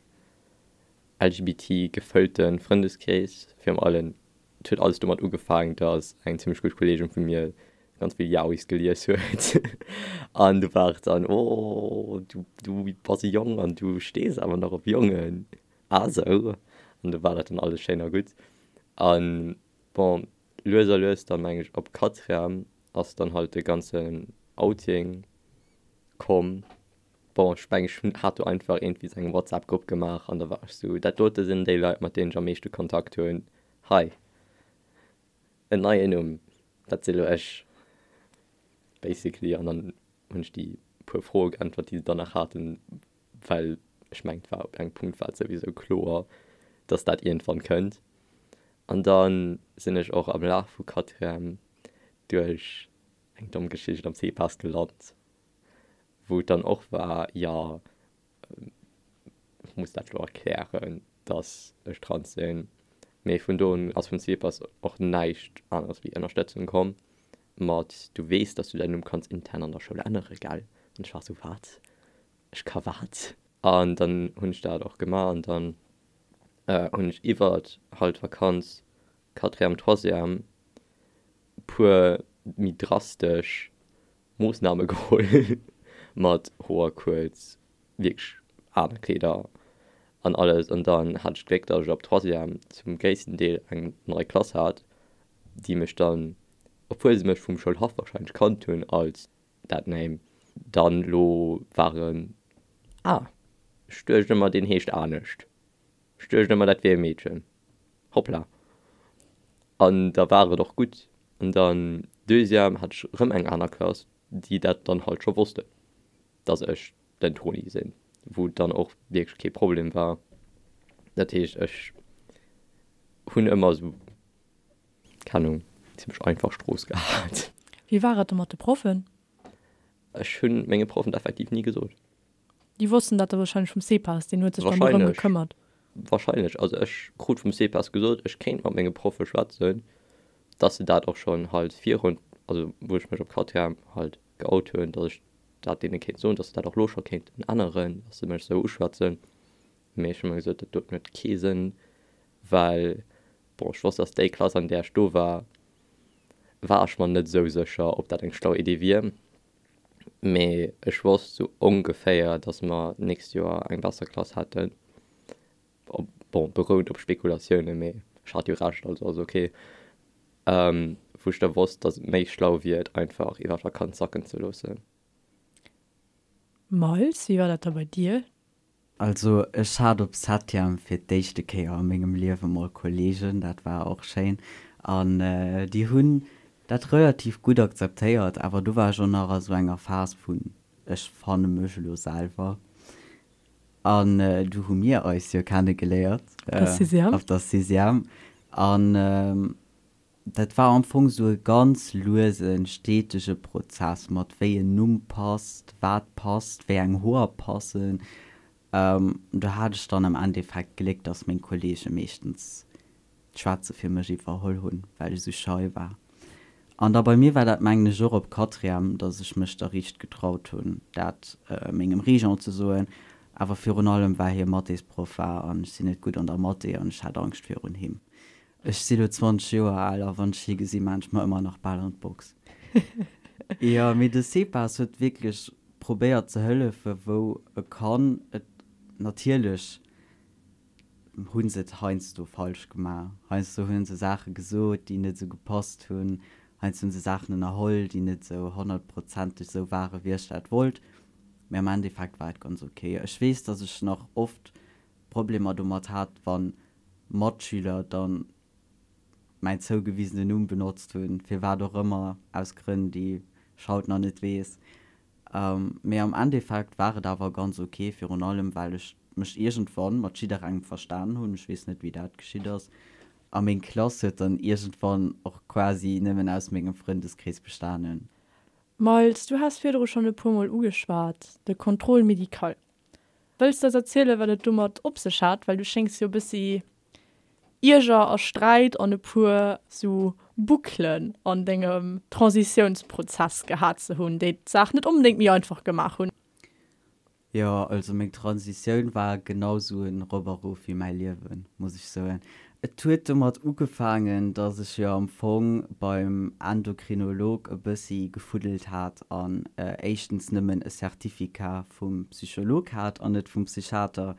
LGBT gefëllte Frëndeskrees. Virun allem, et huet alles domat ugefaangen, dass eng zimmlech gutt Kolleegin vu mir ganz vill Yaois gelies huet an du war et dann, oh du du bass e Jong an du stees awer nach op Jongen, ah sou. An du war dat dann alles schéin a gutt. An bon, lues a lues dann, meng ech, op Quatrième ass dann halt de ganzen Outing komm. Bon, ech mengen, ech hunn, hat do einfach iergendwéi sou eng WhatsApp-Grupp gemaach an da war ech sou, dat dote sinn déi Leit, mat deenen ech am meeschte Kontakt hunn. Hei, en neien Numm, dat si lo ech, basically. An dann hunn ech déi puer Froe geäntwert, déi se dann nach haten, well ech mengen, et war op engem Punkt war et souwisou kloer, dass dat iergendwann kënnt. An da sinn ech och am Laf vu Quatrième duerch eng domm Geschicht am CPAS gelant, wou et dann och war, jo, ech muss dat elo erklären, dass ech trans sinn. Mee vun do un ass vum CPAS och näischt aneres wéi Ënnerstëtzung komm mat, du weess, dass du däin Numm kanns intern an der Schoul ännere, gell? An ech war esou, wat? Ech ka wat? An dann hunn ech dat och gemaach an dann hunn ech iwwert halt d'Vakanz, Quatrième, Troisième, puer méi drastesch Moossname geholl mat Hoer kuerz, wierklech aner Kleeder an alles. An dann hat ech d'Gléck, datt ech ab Troisième zum gréissten Deel eng nei Klass hat, déi mech dann, obwuel se mech vum Schoulhaff warscheinlech kannt hunn als dat Name, dann elo waren, ah, ech duecht ëmmer deen heescht anescht. Ech duecht ëmmer dat wier e Meedchen. Hoppla. An da war et och gutt. An dann Deuxième hat ech erëm eng aner Klass, déi dat dann halt scho wossten, dass ech den Toni sinn, wou et dann och wierklech kee Problem war. Dat heescht, ech hunn ëmmer esou, keng Ahnung, zimmlech einfach Strooss gehat. Wéi war et da mat de Proffen? Ech hunn menge Proffen et effektiv ni gesot. Déi wossten dat da wahrscheinlech vum CEPAS, deen huet sech dann dorëm gekëmmert. Wahrscheinlech. Also ech krut vum CEPAS gesot, ech kéint mat menge Proffe schwätzen, dass se dat och schonn halt virun, also wou ech mech op Quatrième halt geout hunn, dass ech dat deene kéint soen, dass se dat och lo scho kéinten änneren, dass se mech esou uschwätzen. Mee ech hu mer gesot, dat doten huet kee Sënn, well, bon, ech wosst, dass déi Klass, an där ech do war, war ech mer net esou sécher, ob dat eng schlau Idee wier. Mee ech wosst sou ongeféier, dass mer d'nächst Joer eng besser Klass hätten. Bon, berout op Spekulatiounen, mee ech hat jo Recht, also ass ok. Wou ech da wosst, dass et méi schlau wier, et einfach iwwer d'Vakanz sacken ze loossen. Miles, wéi war dat da bei dir? Also ech hat op Septième fir d'éischte Kéier a mengem Liewe mol Kollegen, dat war och schéin an déi hunn dat relativ gutt akzeptéiert, awer do war ech och nach a sou enger Phas vun ech fanne mech elo selwer an du hu mir eis jo kenne geléiert op der Sixième an Dat war am Fong sou e ganz luesen, stetege Prozess mat wéi en Numm passt, wat passt, wéi eng Hoer passen. Do hat ech dann am Endeffekt Gléck, dass meng Kollege meeschtens d'Schwätze fir mech iwwerholl hunn, well ech sou schei war. An da bei mir war dat mengen ech och op Quatrième, dass ech mech da riicht getraut hunn, dat mengem Régent ze soen. Awer virun allem well hie Mathésproff war an ech sinn net gutt an der Mathé an ech hat Angscht virun him. Ech si lo 20 Joer al a wann ech hie gesi maan ech mer ëmmer nach bal an d'Box. Jo, mee de CEPAS huet wierklech probéiert ze hëllefe wou e kann. Et natierlech hu se et heiansdo falsch gemaach, heiansdo hu se Saache gesot, déi net esou gepasst hunn, heiansdo hu se Saachen ënnerholl, déi net esou honnertprozenteg esou ware wéi ech dat wollt, mee am Endeffekt war et ganz ok. Ech weess, datt ech nach oft Problemer domat hat, wann Matschüler dann mäin zougewisenen Numm benotzt hunn, firwat och ëmmer, aus Grënn, déi ech haut nach net weess. Mee am Endeffekt war et awer ganz ok, virun allem well ech mech iergendwann mat jidderengem verstanen hunn, ech weess net wéi dat geschitt ass, a meng Klass huet dann iergendwann och quasi nëmmen aus mengem Frëndeskrees bestanen. Miles, du has virdru schonn e puer Mol ugeschwat, de Contrôle médical. Wëlls de eis erzielen, wat et domat op sech hat? Well du schéngs jo e bëssi Ierger a Sträit an e puer sou Bouclen an dengem Transitiounsprozess gehat ze hunn, déi d'Saach net onbedéngt méi einfach gemaach hunn. Jo, also meng Transitioun war genau sou en Rop a Rof wéi mäi Liewen, muss ech soen. Et huet domat ugefaangen, dass ech jo am Fong beim Endokrinolog e bëssi gefuddelt hat an éischtens nëmmen e Certificat vum Psycholog hat an net vum Psychiater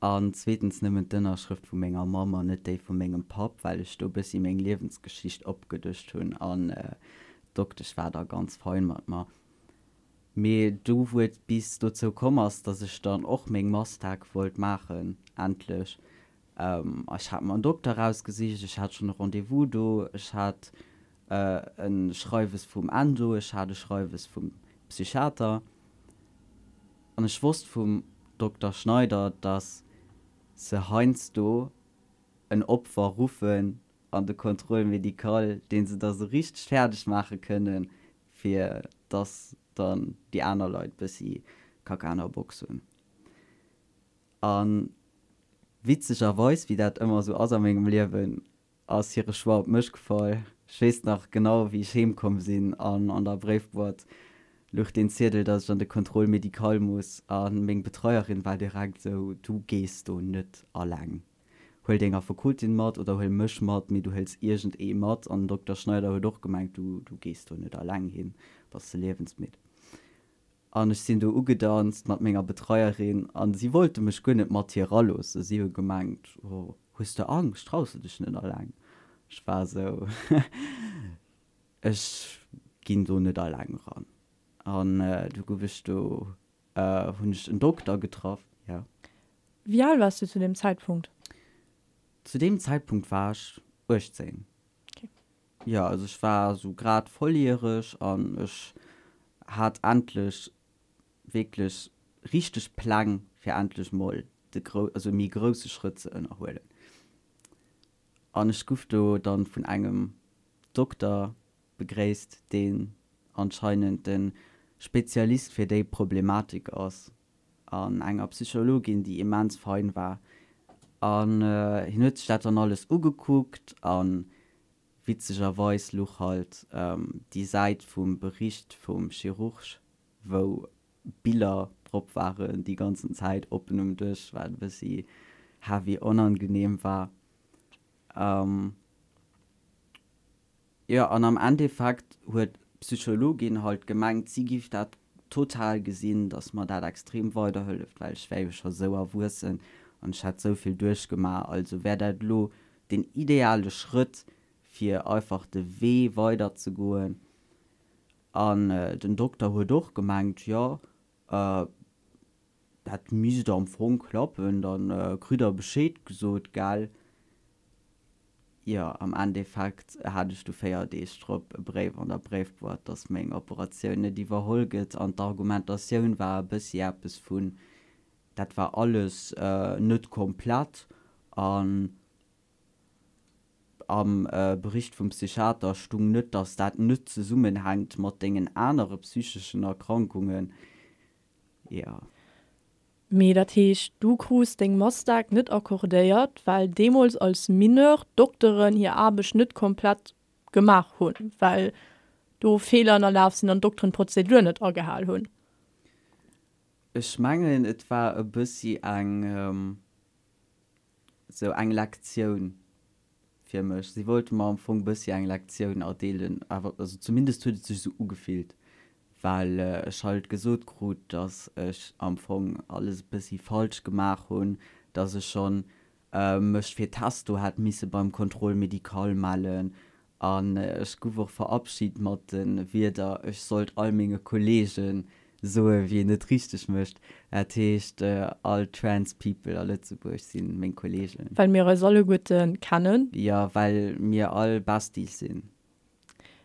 an zweetens nëmmen d'Ënnerschrëft vu menger Mamm an net déi vu mengem Papp, well ech do e bëssi meng Liewensgeschicht opgedëscht hunn an d'Doktesch war da ganz fein mat mer. Mee do wou et bis dozou komm ass, dass ech dann och meng Mastag wollt maachen, endlech, Ech hat mer en Dokter rausgesicht, ech hat schonn e Rendez-vous do, ech hat e Schreiwes vum Endo, ech hat e Schreiwes vum Psychiater an ech wosst vum Dokter Schneider, dass se heiansdo en Opfer ruffen an de Contrôle médical, dee se da sou richteg fäerdeg maache kënnen, fir dass dann déi aner Leit bëssi Kacka an der Box hunn. A witzegerweis, wéi dat ëmmer esou ass a mengem Liewen, ass hire Choix op mech gefall. Ech weess nach genau, wéi ech heem komm sinn an an der Bréifboîte luch deen Ziedel, dass ech an de Contrôle médical muss. A meng Betreierin war direkt esou, Du gees do net alleng. Huel deng Affekotin mat oder huel mech mat, mee du hëls iergend ee mat. An den Dokter Schneider huet och gemengt, Du, du gees do net alleng hin, bass de liewensmidd. An ech sinn do ugedanzt mat menger Betreierin an si wollte mech guer net mat hir eraloossen. Si hu gemengt, Oh, hues de Angscht, traus de dech net alleng? Ech war esou, Ech ginn do net alleng eran. An du gouf ech do, hunn ech en Dokter getraff, jo. Wéi al waars du zu deem Zäitpunkt? Zu deem Zäitpunkt war ech 18. Jo, also ech war esou grad volljäreg an ech hat endlech wierklech richteg Pläng fir endlech mol de grou, also e méi grousse Schrëtt ze ënnerhuelen. An ech guff do dann vun engem Dokter begréisst, deen anscheinend de Spezialist fir déi Problematik ass. an enger Psychologin, déi immens fein war. An hien huet sech dat dann alles ugekuckt a witzegerweis luch halt déi Säit vum Bericht vum Chirurg, wou Biller drop waren, déi ganzen Zäit oppen um Dësch, wat e bëssi heavy onangenehm war. Jo, an am Endeffekt huet d'Psychologin halt gemengt, si giff dat total gesinn, dass mer dat extrem weiderhëlleft, well ech wär jo scho sou erwuessen an ech hätt sou vill duerchgemaach, also wär dat elo den ideale Schrëtt, fir einfach de Wee weiderzegoen. An den Dokter huet och gemengt, jo, dat misst am Fong klappen, da kritt der Bescheed gesot, gell. Jo, am Endeffekt hat ech du 4 Deeg drop e Bréif an der Bréifboîte, dass meng Operatioun net iwwerholl gëtt. An d'Argumentatioun war e bëssi eppes vun, dat war alles net komplett an am Bericht vum Psychiater stung net, dass dat net zesummenhänkt mat dengen anere psycheschen Erkrankungen. Jo. Mee dat heescht, du krus deng Mastag net accordéiert, well deemools als Mineur d'Dokteren hir Aarbecht net komplett gemaach hunn, well do Feeler ënnerlaf sinn an d'Dokteren d'Prozedur net agehal hunn? Ech mengen, et war e bëssi eng, sou eng Lektioun fir mech. Si wollte mer am Fong bëssi eng Lektioun erdeelen, awer also zumindest huet et sech esou ugefillt, well ech halt gesot krut, dass ech am Fong alles e bëssi falsch gemaach hunn, dass ech schonn mech fir Testo hätt misse beim Contrôle médical mellen An ech guff och verabschid mat de Wierder, ech sollt all menge Kollege soen, wéi een et richteg mécht. Dat heescht, all Trans People a Lëtzebuerg si meng Kollegen. Well mir eis alleguerte kennen. Jo, well mir all Besties sinn.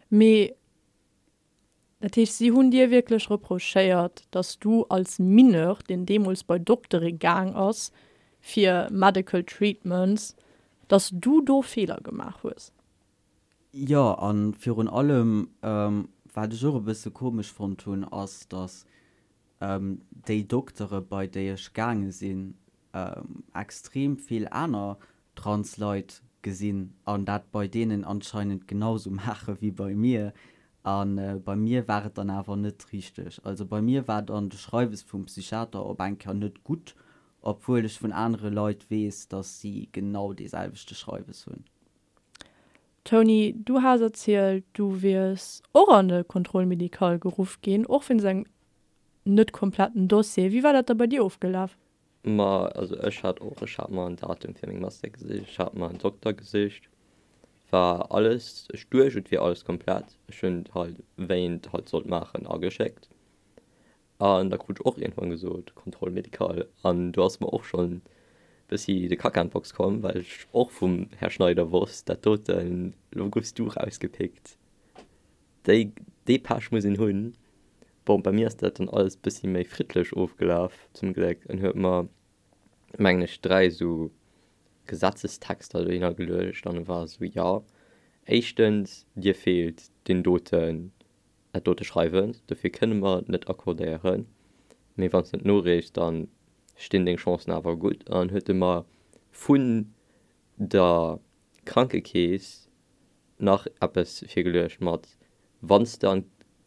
Mee Dat heescht, si hunn dir wierklech reprochéiert, dass du als Mineur, deen deemools bei Doktere gaang ass fir medical treatments, dass du do Feeler gemaach hues? Jo, a virun allem, wat ech och e bësse komesch fonnt hunn, ass, dass déi Doktere, bei déi ech gaange sinn, extrem vill aner trans Leit gesinn an dat bei deenen anscheinend genau sou maache wéi bei mir. A bei mir war et dann awer net richteg. Also bei mir war dann de Schreiwes vum Psychiater op eng Kéier net gutt, obwuel ech vun anere Leit weess, dass si genau dee selwechte Schreiwes hunn. Tony, du has erzielt, du wiers och an de Contrôle médical geruff ginn, och wéinst engem net kompletten Dossier. Wéi war dat da bei dir ofgelaf? Ma also ech hat och, ech hat mer en Datum fir meng Master gesicht, ech hat mer en Dokter gesicht, war alles, ech duecht et wier alles komplett, ech hunn et halt wéi een et halt sollt maachen ageschéckt an da krut ech och iergendwann gesot Contrôle médical an do ass mer och schonn bëssi de Kacka an d'Box komm, well ech och vum Här Schneider wosst, dat doten, lo goufs du rausgepickt. Déi, dee Pech muss een hunn. Bon, bei mir ass dat dann alles bëssi méi friddlech ofgelaf, zum Gléck. En huet mer, mengen ech, 3 esou Gesetzestexter dohinner geluecht an e war esou, jo, éischtens, dir feelt deen doten, dat dote Schreiwen, dofir kënne mer et net accordéieren, mee wann s de et noreechs, da stinn deng Chancen awer gutt. An huet e mer vun der Krankekeess nach eppes virgeluecht mat wann s de an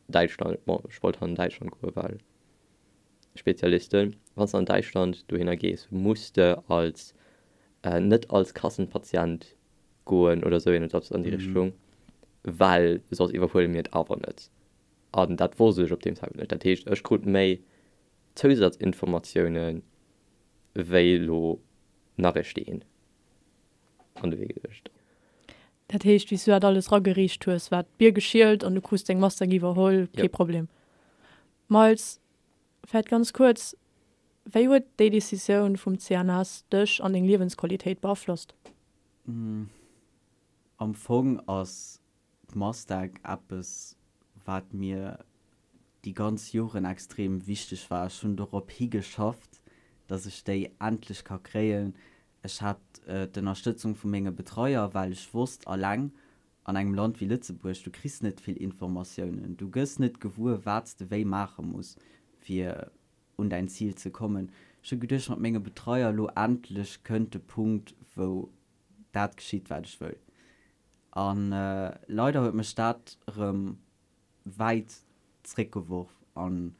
Däitschland, bon ech wollt an Däitschland goe well Spezialisten, wann s de an Däitschland dohinner gees, muss de als net als Kassenpatient goen oder esou iergendeppes an déi Richtung, well soss iwwerhuele mir et awer net. An dat wosst ech op deem Zäitpunkt net. Dat heescht ech krut méi Zousazinformatiounen wéi elo nach e Steen an de Wee geluecht. Dat heescht, wéi s du dat alles ragereecht hues, war d'Bier geschielt an du krus deng Masteng iwwerholl, kee Problem. Miles, vläicht ganz kuerz, wéi huet déi Decisioun vum CNS dech an deng Liewensqualitéit beaflosst? Am Fong ass d'Masteg eppes, wat mir déi ganz Joren extrem wichteg war. Ech hunn dorop higeschafft, dass ech déi endlech ka kréien. Ech hat d'Ënnerstëtzung vu menge Betreier, well ech wosst, alleng an engem Land wéi Lëtzebuerg, du kriss net vill Informatiounen, du gëss net gewuer, wat s de wéi maache muss, fir. un däin Zil ze kommen. Ech hu geduecht mat menge Betreier, elo endlech kënnt de Punkt wou dat geschitt wat ech wëll. An leider huet mech dat erëm wäit zréckgeworf an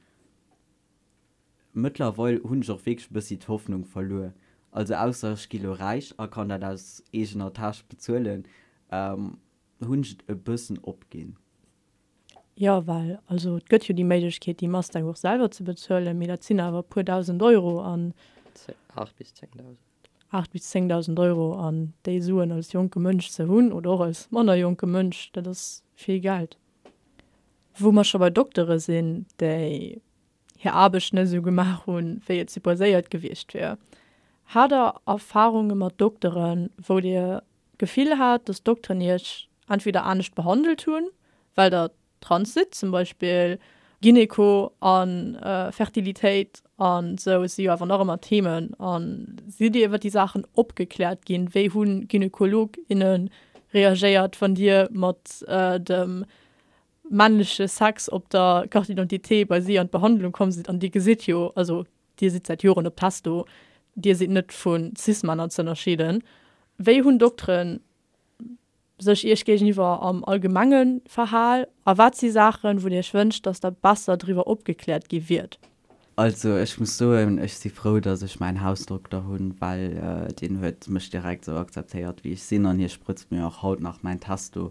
mëttlerweil hunn ech och wierklech e bëssi d'Hoffnung verluer. Also ausser ech gi lo räich a kann dat aus eegener Täsch bezuelen, hunn ech et e bëssen opginn. Jo, well also et gëtt jo déi Méiglechkeet déi Mustang och selwer ze bezuelen, mee dat sinn awer e puer dausend Euro an. 8 bis 10.000. 8 bis 10.000 Euro an déi Suen als jonke Mënsch ze hunn oder och als manner jonke Mënsch, dat ass vill Geld. Wou mer scho bei Doktere sinn, déi hir Aarbecht net esou gemaach hunn, wéi et supposéiert gewiescht wier. Hat der Erfarunge mat Dokteren, wou Dir d'Gefill hat, dass d'Dokteren Iech entweder anescht behandelt hunn, well Der trans sidd, zum Beispill Gyneko a Fertilitéit an esou si jo awer nach ëmmer Themen, a sidd Dir iwwer déi Saachen opgekläert ginn? Wéi hu Gynekolog, inne reagéiert, wann Dir mat dem männleche Sex op der Carte d'identité bei si an d'Behandlung komm sidd? An Dir gesitt jo, also Dir sidd säit Joren op Testo, Dir sidd net vu Cis-Männer ze ënnerscheeden. Wéi hunn Dokteren sech Iech géigeniwwer am Allgemenge verhal a wat si Saachen, wou Dir Iech wënscht, dass Der besser driwwer opgekläert gi wiert? Also ech muss soen, ech si frou, dass ech mäin Hausdokter hunn, well deen huet mech direkt esou akzeptéiert wéi ech sinn an hie sprëtzt mir och haut nach mäin Testo.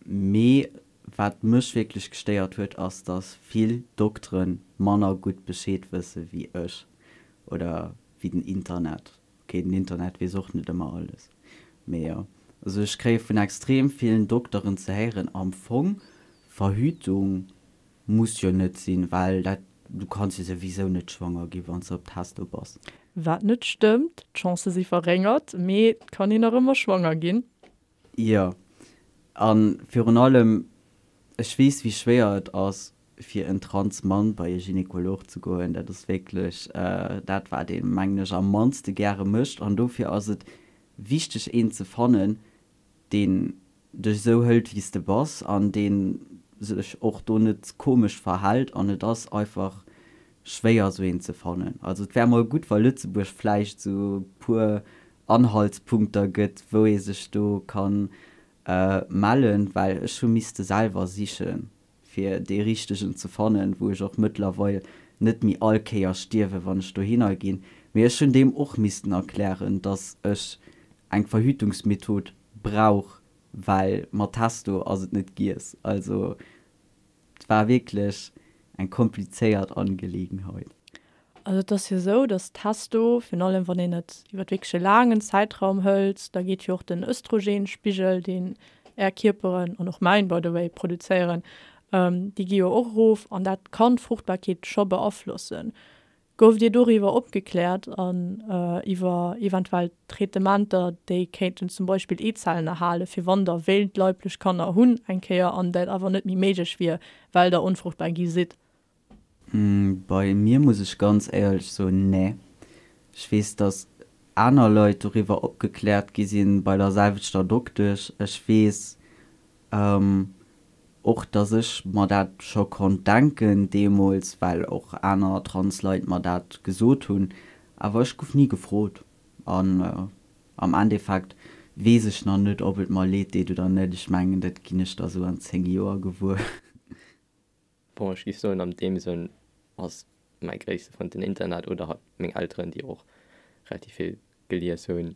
Mee wat mech wierklech gestéiert huet, ass, dass vill Doktere manner gutt Bescheed wësse wéi ech oder wéi den Internet. Ok, den Internet weess och net ëmmer alles, mee jo. Also ech kréie vun extrem villen Dokteren ze héieren, am Fong, Verhütung muss jo net sinn, well dat, du kanns jo souwisou net schwanger gi wann s de op Testo bass. Wat net stëmmt, d'Chancë si verréngert, mee et kann een nach ëmmer schwanger ginn. Jo, a virun allem, ech weess wéi schwéier et ass fir en trans Mann bei e Gynekolog ze goen. Dat ass wierklech dat wat een, mengen ech, am mannste gäre mécht. An dofir ass et wichteg een ze fannen, deen dech esou hëlt wéi s de bass an deen sech och do net komesch verhält. An et ass einfach schwéier esou een ze fannen. Also et wär mol gutt wa Lëtzebuerg vläicht esou e puer Anhaltspunkter gëtt wou ee sech do kann mellen, well ech hu misste selwer sichen fir dee richtegen ze fannen, wou ech och mëttlerweil net méi all Kéier stierwen, wann ech dohinner ginn. Mee ech hunn deem och missten erklären, dass ech eng Verhütungsmethod brauch, well mat Testo ass et net giess. Also Et war wierklech eng komplizéiert Angelegenheit. Also et ass jo esou, datt Testo, virun allem wann een et iwwer wierklech e laangen Zäitraum hëlt, da geet jo och den Östrogenspigel, deen Är Kierperen, an och mäin by the way, produzéieren, déi gi jo och erof an dat kann d'Fruchtbarkeet scho beaflossen. Gouft Dir doriwwer opgekläert an iwwer eventuell Traitementer, déi kéinten zum Beispill Eezellen erhalen, fir wann Der wéilt leiblech Kanner hunn eng Kéier an dat awer net méi méiglech wier, well Der onfruchtbar gi sidd? Bei mir muss ech ganz éierlech soen, nee. Ech weess, dass aner Leit doriwwer opgekläert gi sinn bei der selwechter Doktesch. Ech weess Och dass ech mer dat scho konnt denken deemools, well och aner trans Leit mer dat gesot hunn, awer ech gouf ni gefrot an am Endeffekt weess ech nach net ob et mer leed deet oder net. Ech mengen dat ginn ech da sou an 10 Joer gewuer. Bon, ech géif soen an deem Sënn ass mäi gréisste Frënd den Internet oder halt meng Elteren, déi och relativ vill gelies hunn.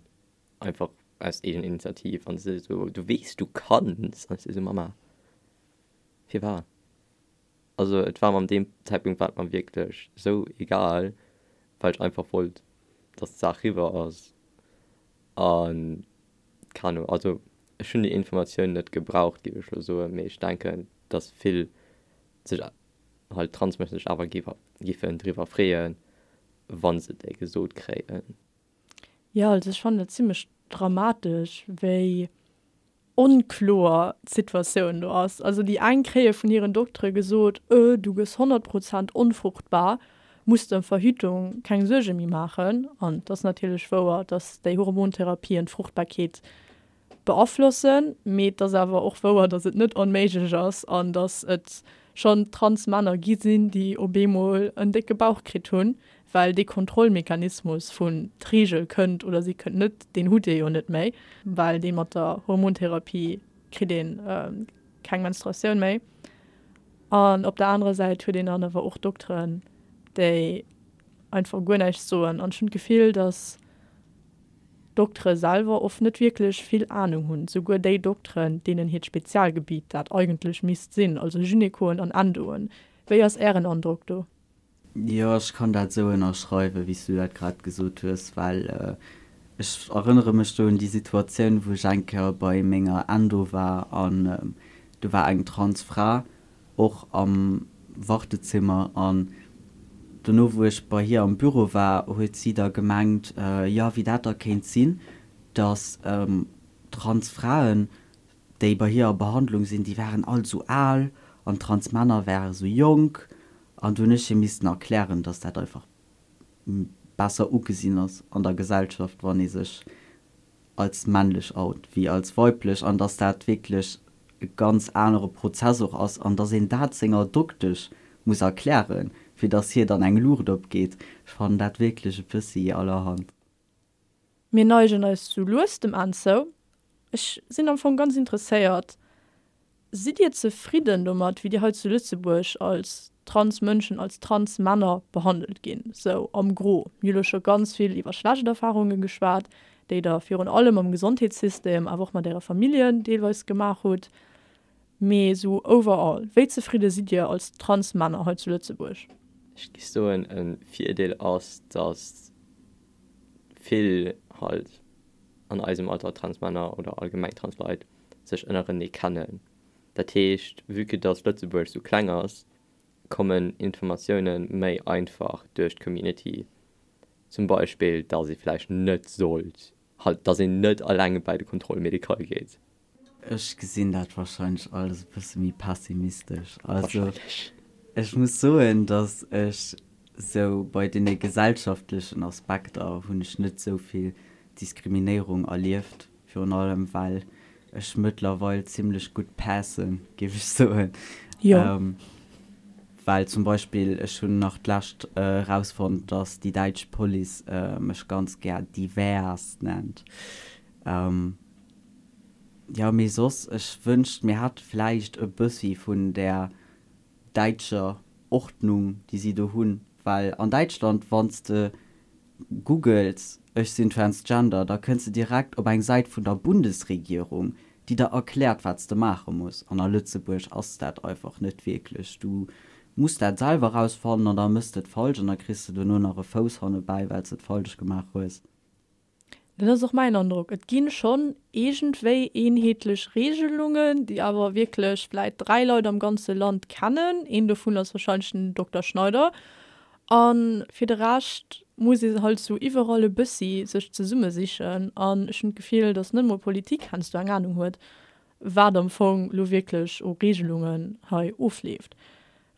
Einfach aus Eegeninitiativ an se esou, du weess du kanns an ech esou, Mama firwat? Also et war mer an deem Zäitpunkt war et mer wierklech esou egal, well ech einfach wollt dass d'Saach riwwer ass an keen Ahnung, also ech hunn déi Informatioun net gebraucht géif ech elo soen, mee ech denken dass vill sech halt Transmënschen sech awer giffen driwwer freeën wa se déi gesot kréien. Jo, also ech fannen et zimlech dramatesch, wéi onkloer d'Situatioun do ass. Also déi eng kréie vun hiren Doktere gesot, Öh, du gëss 100 Prozent onfruchtbar, muss der ëm Verhütung keng Suerge méi maachen. An et ass natierlech wouer, datt déi Hormontherapien d'Fruchtbarkeet beaflossen, mee et ass awer och wouer, datt et net onméiglech ass an datt et. schonn Transmänner gi sinn, déi op eemol en décke Bauch kritt hunn, well dee Kontrollmechanismus vun d'Reegel kënnt oder si kënnt net, deen hutt Dir jo net méi, well dee mat der Hormontherapie kritt ee keng Menstruatioun méi. An op der anerer Säit huet een dann awer och Dokteren, déi einfach guer näischt soen. An ech hunn d'Gefill, datt d'Doktere selwer oft net wierklech vill Anung hunn, souguer déi Dokteren, deenen hiert Spezialgebiet dat eigentlech misst sinn, also Gynekoen an Endoen. Wéi ass Ären Androck do? Jo, ech kann dat esou ënnerschreiwen, wéi s du dat grad gesot hues, well ech erënnere mech do un déi Situatioun, wou ech eng Kéier bei menger Endo war an do war eng trans Fra och am Wartezimmer an dono, wou ech bei hir am Büro war, huet si da gemengt, jo, wéi dat da kéint sinn, dass trans Fraen, déi bei hir a Behandlung sinn, déi waren all esou al an trans Männer ware sou jonk. An do hunn ech hir missten erklären, dass dat einfach besser ugesinn ass an der Gesellschaft, wann ee sech als männlech out wéi als weiblech an dass dat wierklech e ganz anere Prozess och ass an dass een dat senger Doktesch muss erklären, fir dass hir dann eng Luucht opgeet. Ech fannen dat wierklech e bëssi allerhand. Mir neigen eis sou lues dem Enn zou. Ech sinn am Fong ganz interesséiert, Sidd Dir zefridden domat, wéi Dir hei zu Lëtzebuerg als trans Mënschen, als trans Männer behandelt ginn, sou am Gros? Mir hu lo scho ganz vill iwwer schlecht Erfarunge geschwat, déi Der virun allem am Gesondheetssystem, awer och mat Äre Familljen deelweis gemaach hutt. Mee sou overall, wéi zefridde sidd Dir als trans Männer hei zu Lëtzebuerg? Ech géif soen, e Virdeel ass, datt vill halt an eisem Alter trans Männer oder allgemeng trans Leit sech ënnerenee kennen. Dat heescht, vue que dass Lëtzebuerg sou kleng ass, kommen Informatioune méi einfach duerch d'Community. Zum Beispill, dass ee vläicht net sollt, halt, dass een net eleng bäi de Contrôle médical geet. Ech gesinn dat wahrscheinlech alles e bësse méi pessimistesch. Also ech muss soen, dass ech sou bei deene gesellschaftlechen Aspekter hunn ech net sou vill Diskriminéierung erlieft. Virun allem well ech mëttlerweil zimlech gutt passen, géif ech soen. Jo. Well zum Beispill ech hunn nach d'lescht erausfonnt, dass déi däitsch Police mech ganz gär divers nennt. Jo, mee soss, ech wënscht mir hätte vläicht e bëssi vun där däitscher Ordnung, déi si do hunn. Well an Däitschland, wann s de googles ech sinn transgender, da kënns de direkt op eng Säit vun der Bundesregierung, déi der erkläert, wat s de maache muss. An a Lëtzebuerg ass dat einfach net wierklech. Du muss dat selwer rausfannen an da mëss de et falsch an da kriss de dono nach e Fouss hannebäi, well s de et falsch gemaach hues. Dat ass och mäin Androck. Et gi schonn iergendwéi eenheetlech Reegelungen, déi awer wierklech vläit 3 Leit am ganze Land kennen. Een dovun ass warscheinlech den Dokter Schneider. A fir de Rescht muss ee halt sou iwwerall e bëssi sech zesummesichen. An ech hunn d'Gefill, datt net emol d'Politik heiansdo eng Anung huet, wat am Fong lo wierklech u Reegelungen hei ofleeft.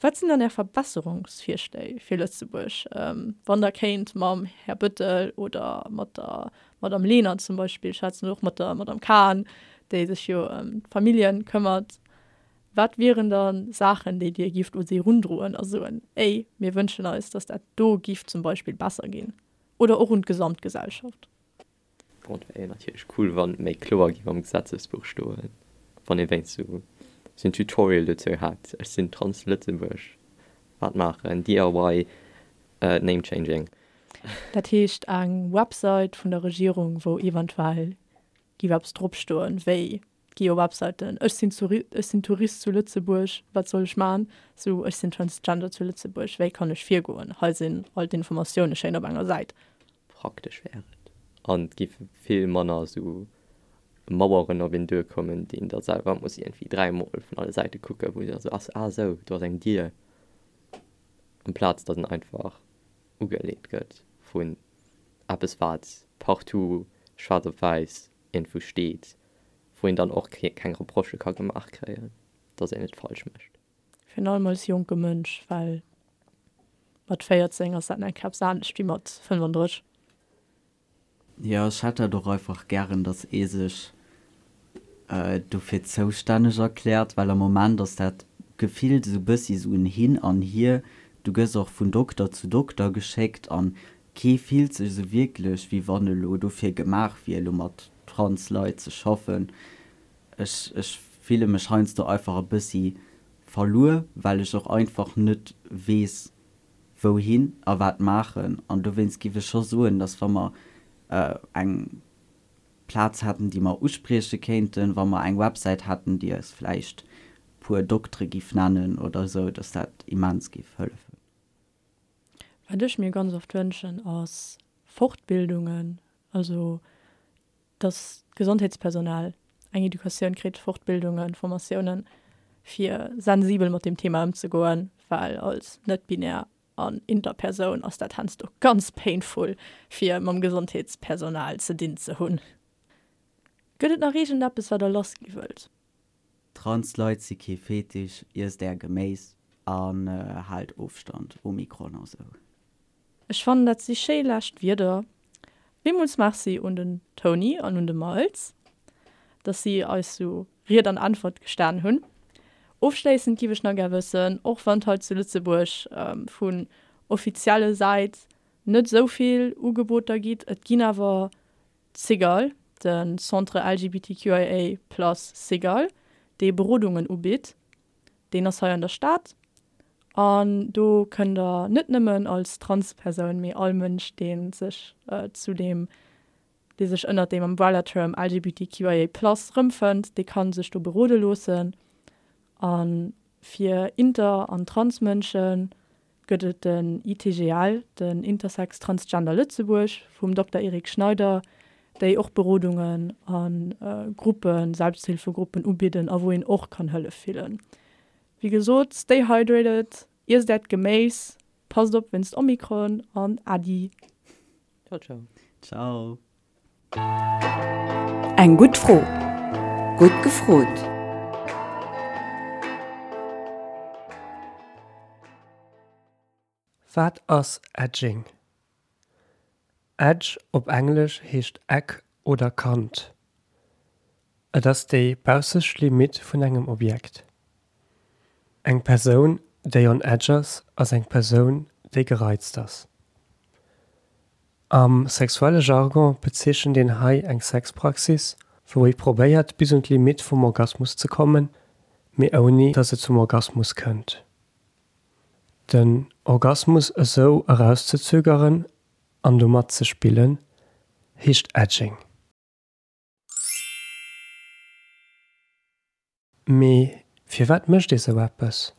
Wat sinn dann Är Verbesserungsvirschléi fir Lëtzebuerg, wann Der kéint mam Här Bettel oder mat der Madame Lenert zum Beispill schwätzen oder och mat der Madame Cahen, déi sech jo ëm d'Familljen këmmert? Wat wieren da Saachen, déi Dir gifft u si erundroen a soen, Ey, mir wënschen eis, datt dat do giff zum Beispill besser ginn? Oder och un d'Gesamtgesellschaft? Bon, et wär jo natierlech cool, wann et méi kloer géif am Gesetzesbuch stoen, wann ee wéinst sou en Tutorial dozou hätt, Ech sinn trans Lëtzebuerg, wat maachen, DIY name changing. Dat heescht eng Website vun der Regierung, wou eventuell giff eppes drop stoen, wéi gi jo Webseiten, ech sinn zu ech sinn Tourist zu Lëtzebuerg, wat soll ech man, sou ech sinn Transgender zu Lëtzebuerg, wéi kann ech virgoen, hei sinn all d'Informatioune schéin op enger Säit. Praktesch wär et an et géife vill manner sou Maueren op een duerkommen, déi een da selwer muss iergendwéi dräimol vun alle Säite kucken, wou da sou ass, ah sou, do ass eng Dier, amplaz datt en einfach ugeleet gëtt vun eppes wat partout schwaarz op wäiss iergendwou steet, wou een dann och keng Reprochë ka gemaach kréien, datt een et falsch mécht. Virun allem als jonke Mënsch, well mat 14 ass dat nach eppes anescht wéi mat 35. Jo, ech hätt dat och einfach gären, datt ee sech dofir zoustänneg erkläert, well am Moment ass dat. gefillt esou bëssi esou en Hin an Hier. Du gëss och vun Dokter zu Dokter geschéckt an kee fillt sech esou wierklech, wéi wann e lo dofir gemaach wier, elo mat trans Leit ze schaffen. Ech, ech fille mech heiansdo einfach e bëssi verluer, well ech och einfach net weess, wouhin a wat maachen. An dowéinst giff ech scho soen, dass wa mer eng Plaz hätten, déi mer usprieche kéinten, wa mer eng Websäit hätten, déi eis vläicht puer Doktere giff nennen oder esou, dass dat immens giff hëllefen. Wat ech mir ganz oft wënschen, ass Fortbildungen, also dass d'Gesondheetspersonal eng Educatioun kritt, Fortbildungen, Formatiounen, fir sensibel mat deem Thema ëmzegoen, well als net-binär an Interpersoun ass dat heiansdo ganz painful, fir mam Gesondheetspersonal ze dinn ze hunn. Gëtt et nach iergendeppes, wat der lassgi wëllt? Trans Leit si kee Fetisch, iesst är Geméis an haalt Ofstand, Omikron a sou. Ech fannen dat si schéi lescht Wierder. Villmools Merci un den Tony an un de Miles, dass si eis sou Ried an Äntwert gestan hunn. Ofschléissend giff ech nach gär wëssen, och wann hei zu Lëtzebuerg vun offizielle Säit net sou vill Ugeboter gitt, et ginn awer d'Cigale, de Centre LGBTQIA plus Cigale, dee Berodungen ubitt. Deen ass hei an der Stad an do kënnt der net nëmmen als Transpersoun, mee all Mënsch, dee sech zu deem, dee sech ënnert deem Umbrella-Term LGBTQIA plus erëmfënnt, dee ka sech do berode loossen. A fir Inter an Transmënsche gëtt et den ITGL, den Intersex Transgender Lëtzebuerg vum Dokter Eric Schneider, déi och Berodungen a Gruppen, Selbsthilfegruppen ubidden a wou een och kann Hëllef fillen. Wéi gesot, stay hydrated, iesst äert Geméis, passt op wéinst Omikron an Äddi. Ciao ciao. Ciao. Eng gutt Fro, gutt gefrot! Wat ass Edging? Edge op Englesch heescht Eck oder Kant. Et ass déi baussescht Limitt vun engem Objekt. Eng Persoun, déi on edge ass, ass eng Persoun, déi gereizt ass. Am sexuelle Jargon bezeechent een hei eng Sexpraxis, wou ee probéiert bis un d'Limitt vum Orgasmus ze kommen, mee ouni datt et zum Orgasmus kënnt. Den Orgasmus esou erauszezögeren an domat ze spillen, heescht Edging. Mee firwat mécht ee sou eppes?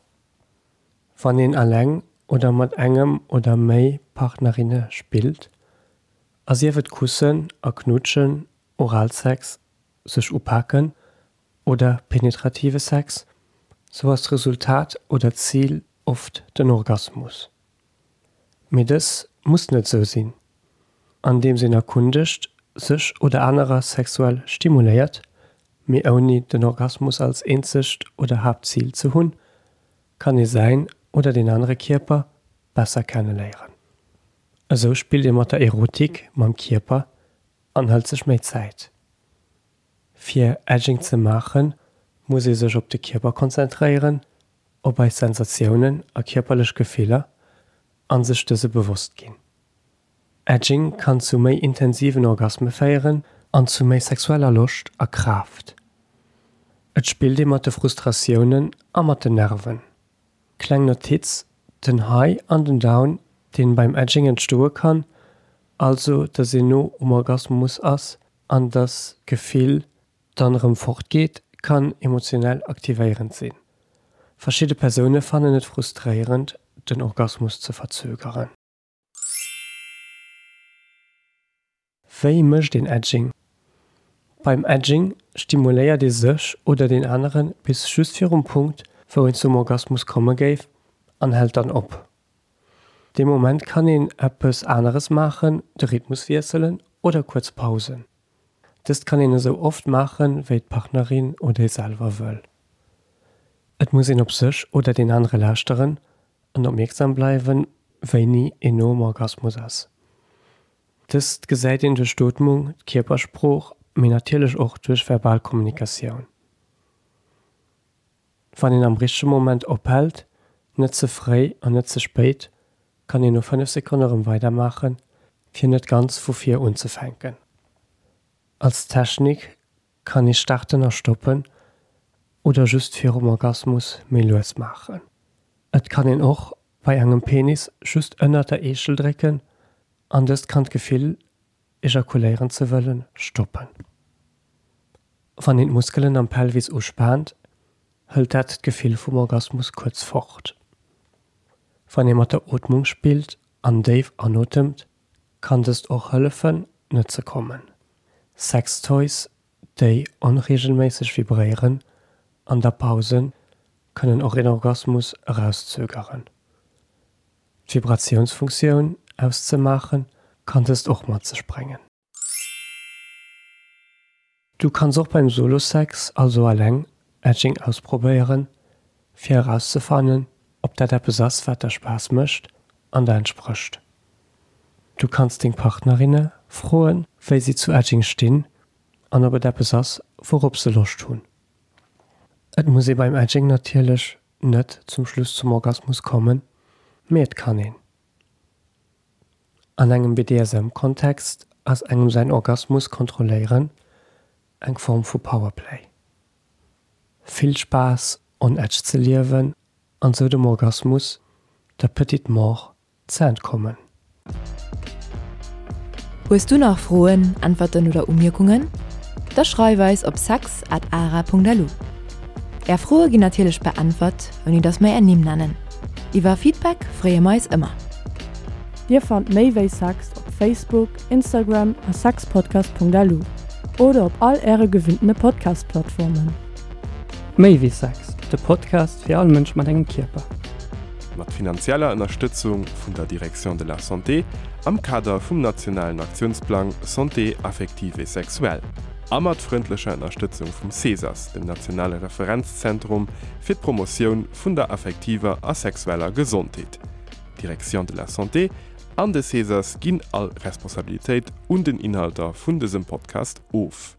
Wann een eleng oder mat engem oder méi Partnerinne spillt, a sief et kussen a knutschen, Oralsex, sech upaken oder penetrative Sex, sou ass d'Resultat oder d'Zil oft den Orgasmus. Mee dës muss net sou sinn. Andeems een erkundegt, sech oder anerer sexuell stimuléiert, mee ouni den Orgasmus als eenzegt oder Haaptzil ze hunn, kann ee säin oder deen anere Kierper besser kenneléieren. Esou spillt ee mat der Erotik, mam Kierper an hëlt sech méi Zäit. Fir Edging ze maachen, muss ee sech op de Kierper konzentréieren, op eis Sensatiounen a kierperlech Gefiller a sech dëse bewosst ginn. Edging kann zu méi intensiven Orgasme féieren an zu méi sexueller Loscht a Kraaft. Et spillt ee mat de Frustratiounen a mat den Nerven. Kleng Notiz, Den High an den Down deen beim Edging entstoe kann, also dass een no um Orgasmus ass an dass d'Gefill dann erëm fort geet, kann emotionell aktivéierend sinn. Verschidde Persoune fannen et frustréierend den Orgasmus ze verzögeren. Wéi mécht een Edging? Beim Edging stimuléiert ee sech oder deen anere bis just virum Punkt, wou een zum Orgasmus komme géif an hält dann op. Dee Moment kann een eppes aneres maachen, de Rhythmus wiesselen oder kuerz pausen. Dëst kann een esou oft maachen, wéi d'Partnerin oder ee selwer wëll. Et muss een op sech oder deen anere lauschteren an opmierksam bleiwen, wéini een no um Orgasmus ass. Dëst gesäit een duerch d'Ootmung, d'Kierpersprooch, mee natierlech och duerch verbal Kommunikatioun. Wann een am richtege Moment ophält, net ze fréi an net ze spéit, kann een no 5 Sekonne rëm weidermaachen, fir net ganz vu vir unzefänken. Als Technik kann ee starten a stoppen oder just virum Orgasmus méi lues maachen. Et kann een och bei engem Penis just ënnert der Eechel drécken an dëst kann d'Gefill ejakuléieren ze wëllen, stoppen. Wann een d'Muskelen am Pelvis uspaant, hëlt dat d'Gefill vum Orgasmus kuerz fort. Wann ee mat der Ootmung spillt an déif anotemt, kann dëst och hëllefen, net ze kommen. Sextoys, déi onreegelméisseg vibréieren an der Pause, kënnen och een Orgasmus erauszögeren. D'Vibratiounsfunktioun auszemaachen, kann dëst och mat sech bréngen. Du kanns och beim Solo-Sex, also alleng, Edging ausprobéieren, fir erauszefannen, ob dat eppes ass, wat der Spaass mécht an der entsprécht. Du kanns deng Partnerinne froen, wéi si zu Edging stinn an ob et eppes ass, wourop se Loscht hunn. Et muss ee beim Edging natierlech net zum Schluss zum Orgasmus kommen, mee et kann een. An engem BDSM-Kontext ass engem säin Orgasmus kontrolléieren eng Form vu Powerplay. Vill Spaass on edge ze liewen an sou dem Orgasmus, der petite mort, ze entkommen. Hues du nach Froen, Äntwerten oder Umierkungen? Da schreif eis op sex at ara.lu. Är Froe ginn natierlech beäntwert, ouni dass mer är Nimm nennen. Iwwer Feedback freeë mer eis ëmmer. Dir fannt méi wéi Sex op Facebook, Instagram a sexpodcast.lu oder op all äre gewinntene Podcast-Plattformen. Méi wéi Sex, de Podcast fir all Mënsch mat engem Kierper. Mat finanzieller Ënnerstëtzung vun der Direction de la Santé am Kader vum nationalen Aktiounsplang Santé affective et sexuelle a mat frëndlecher Ënnerstëtzung vum CESAS, dem nationale Referenzzentrum fir d'Promotioun vun der affektiver a sexueller Gesondheet. D'Direction de la Santé an de CESAS ginn all Responsabilitéit un den Inhalter vun dësem Podcast of.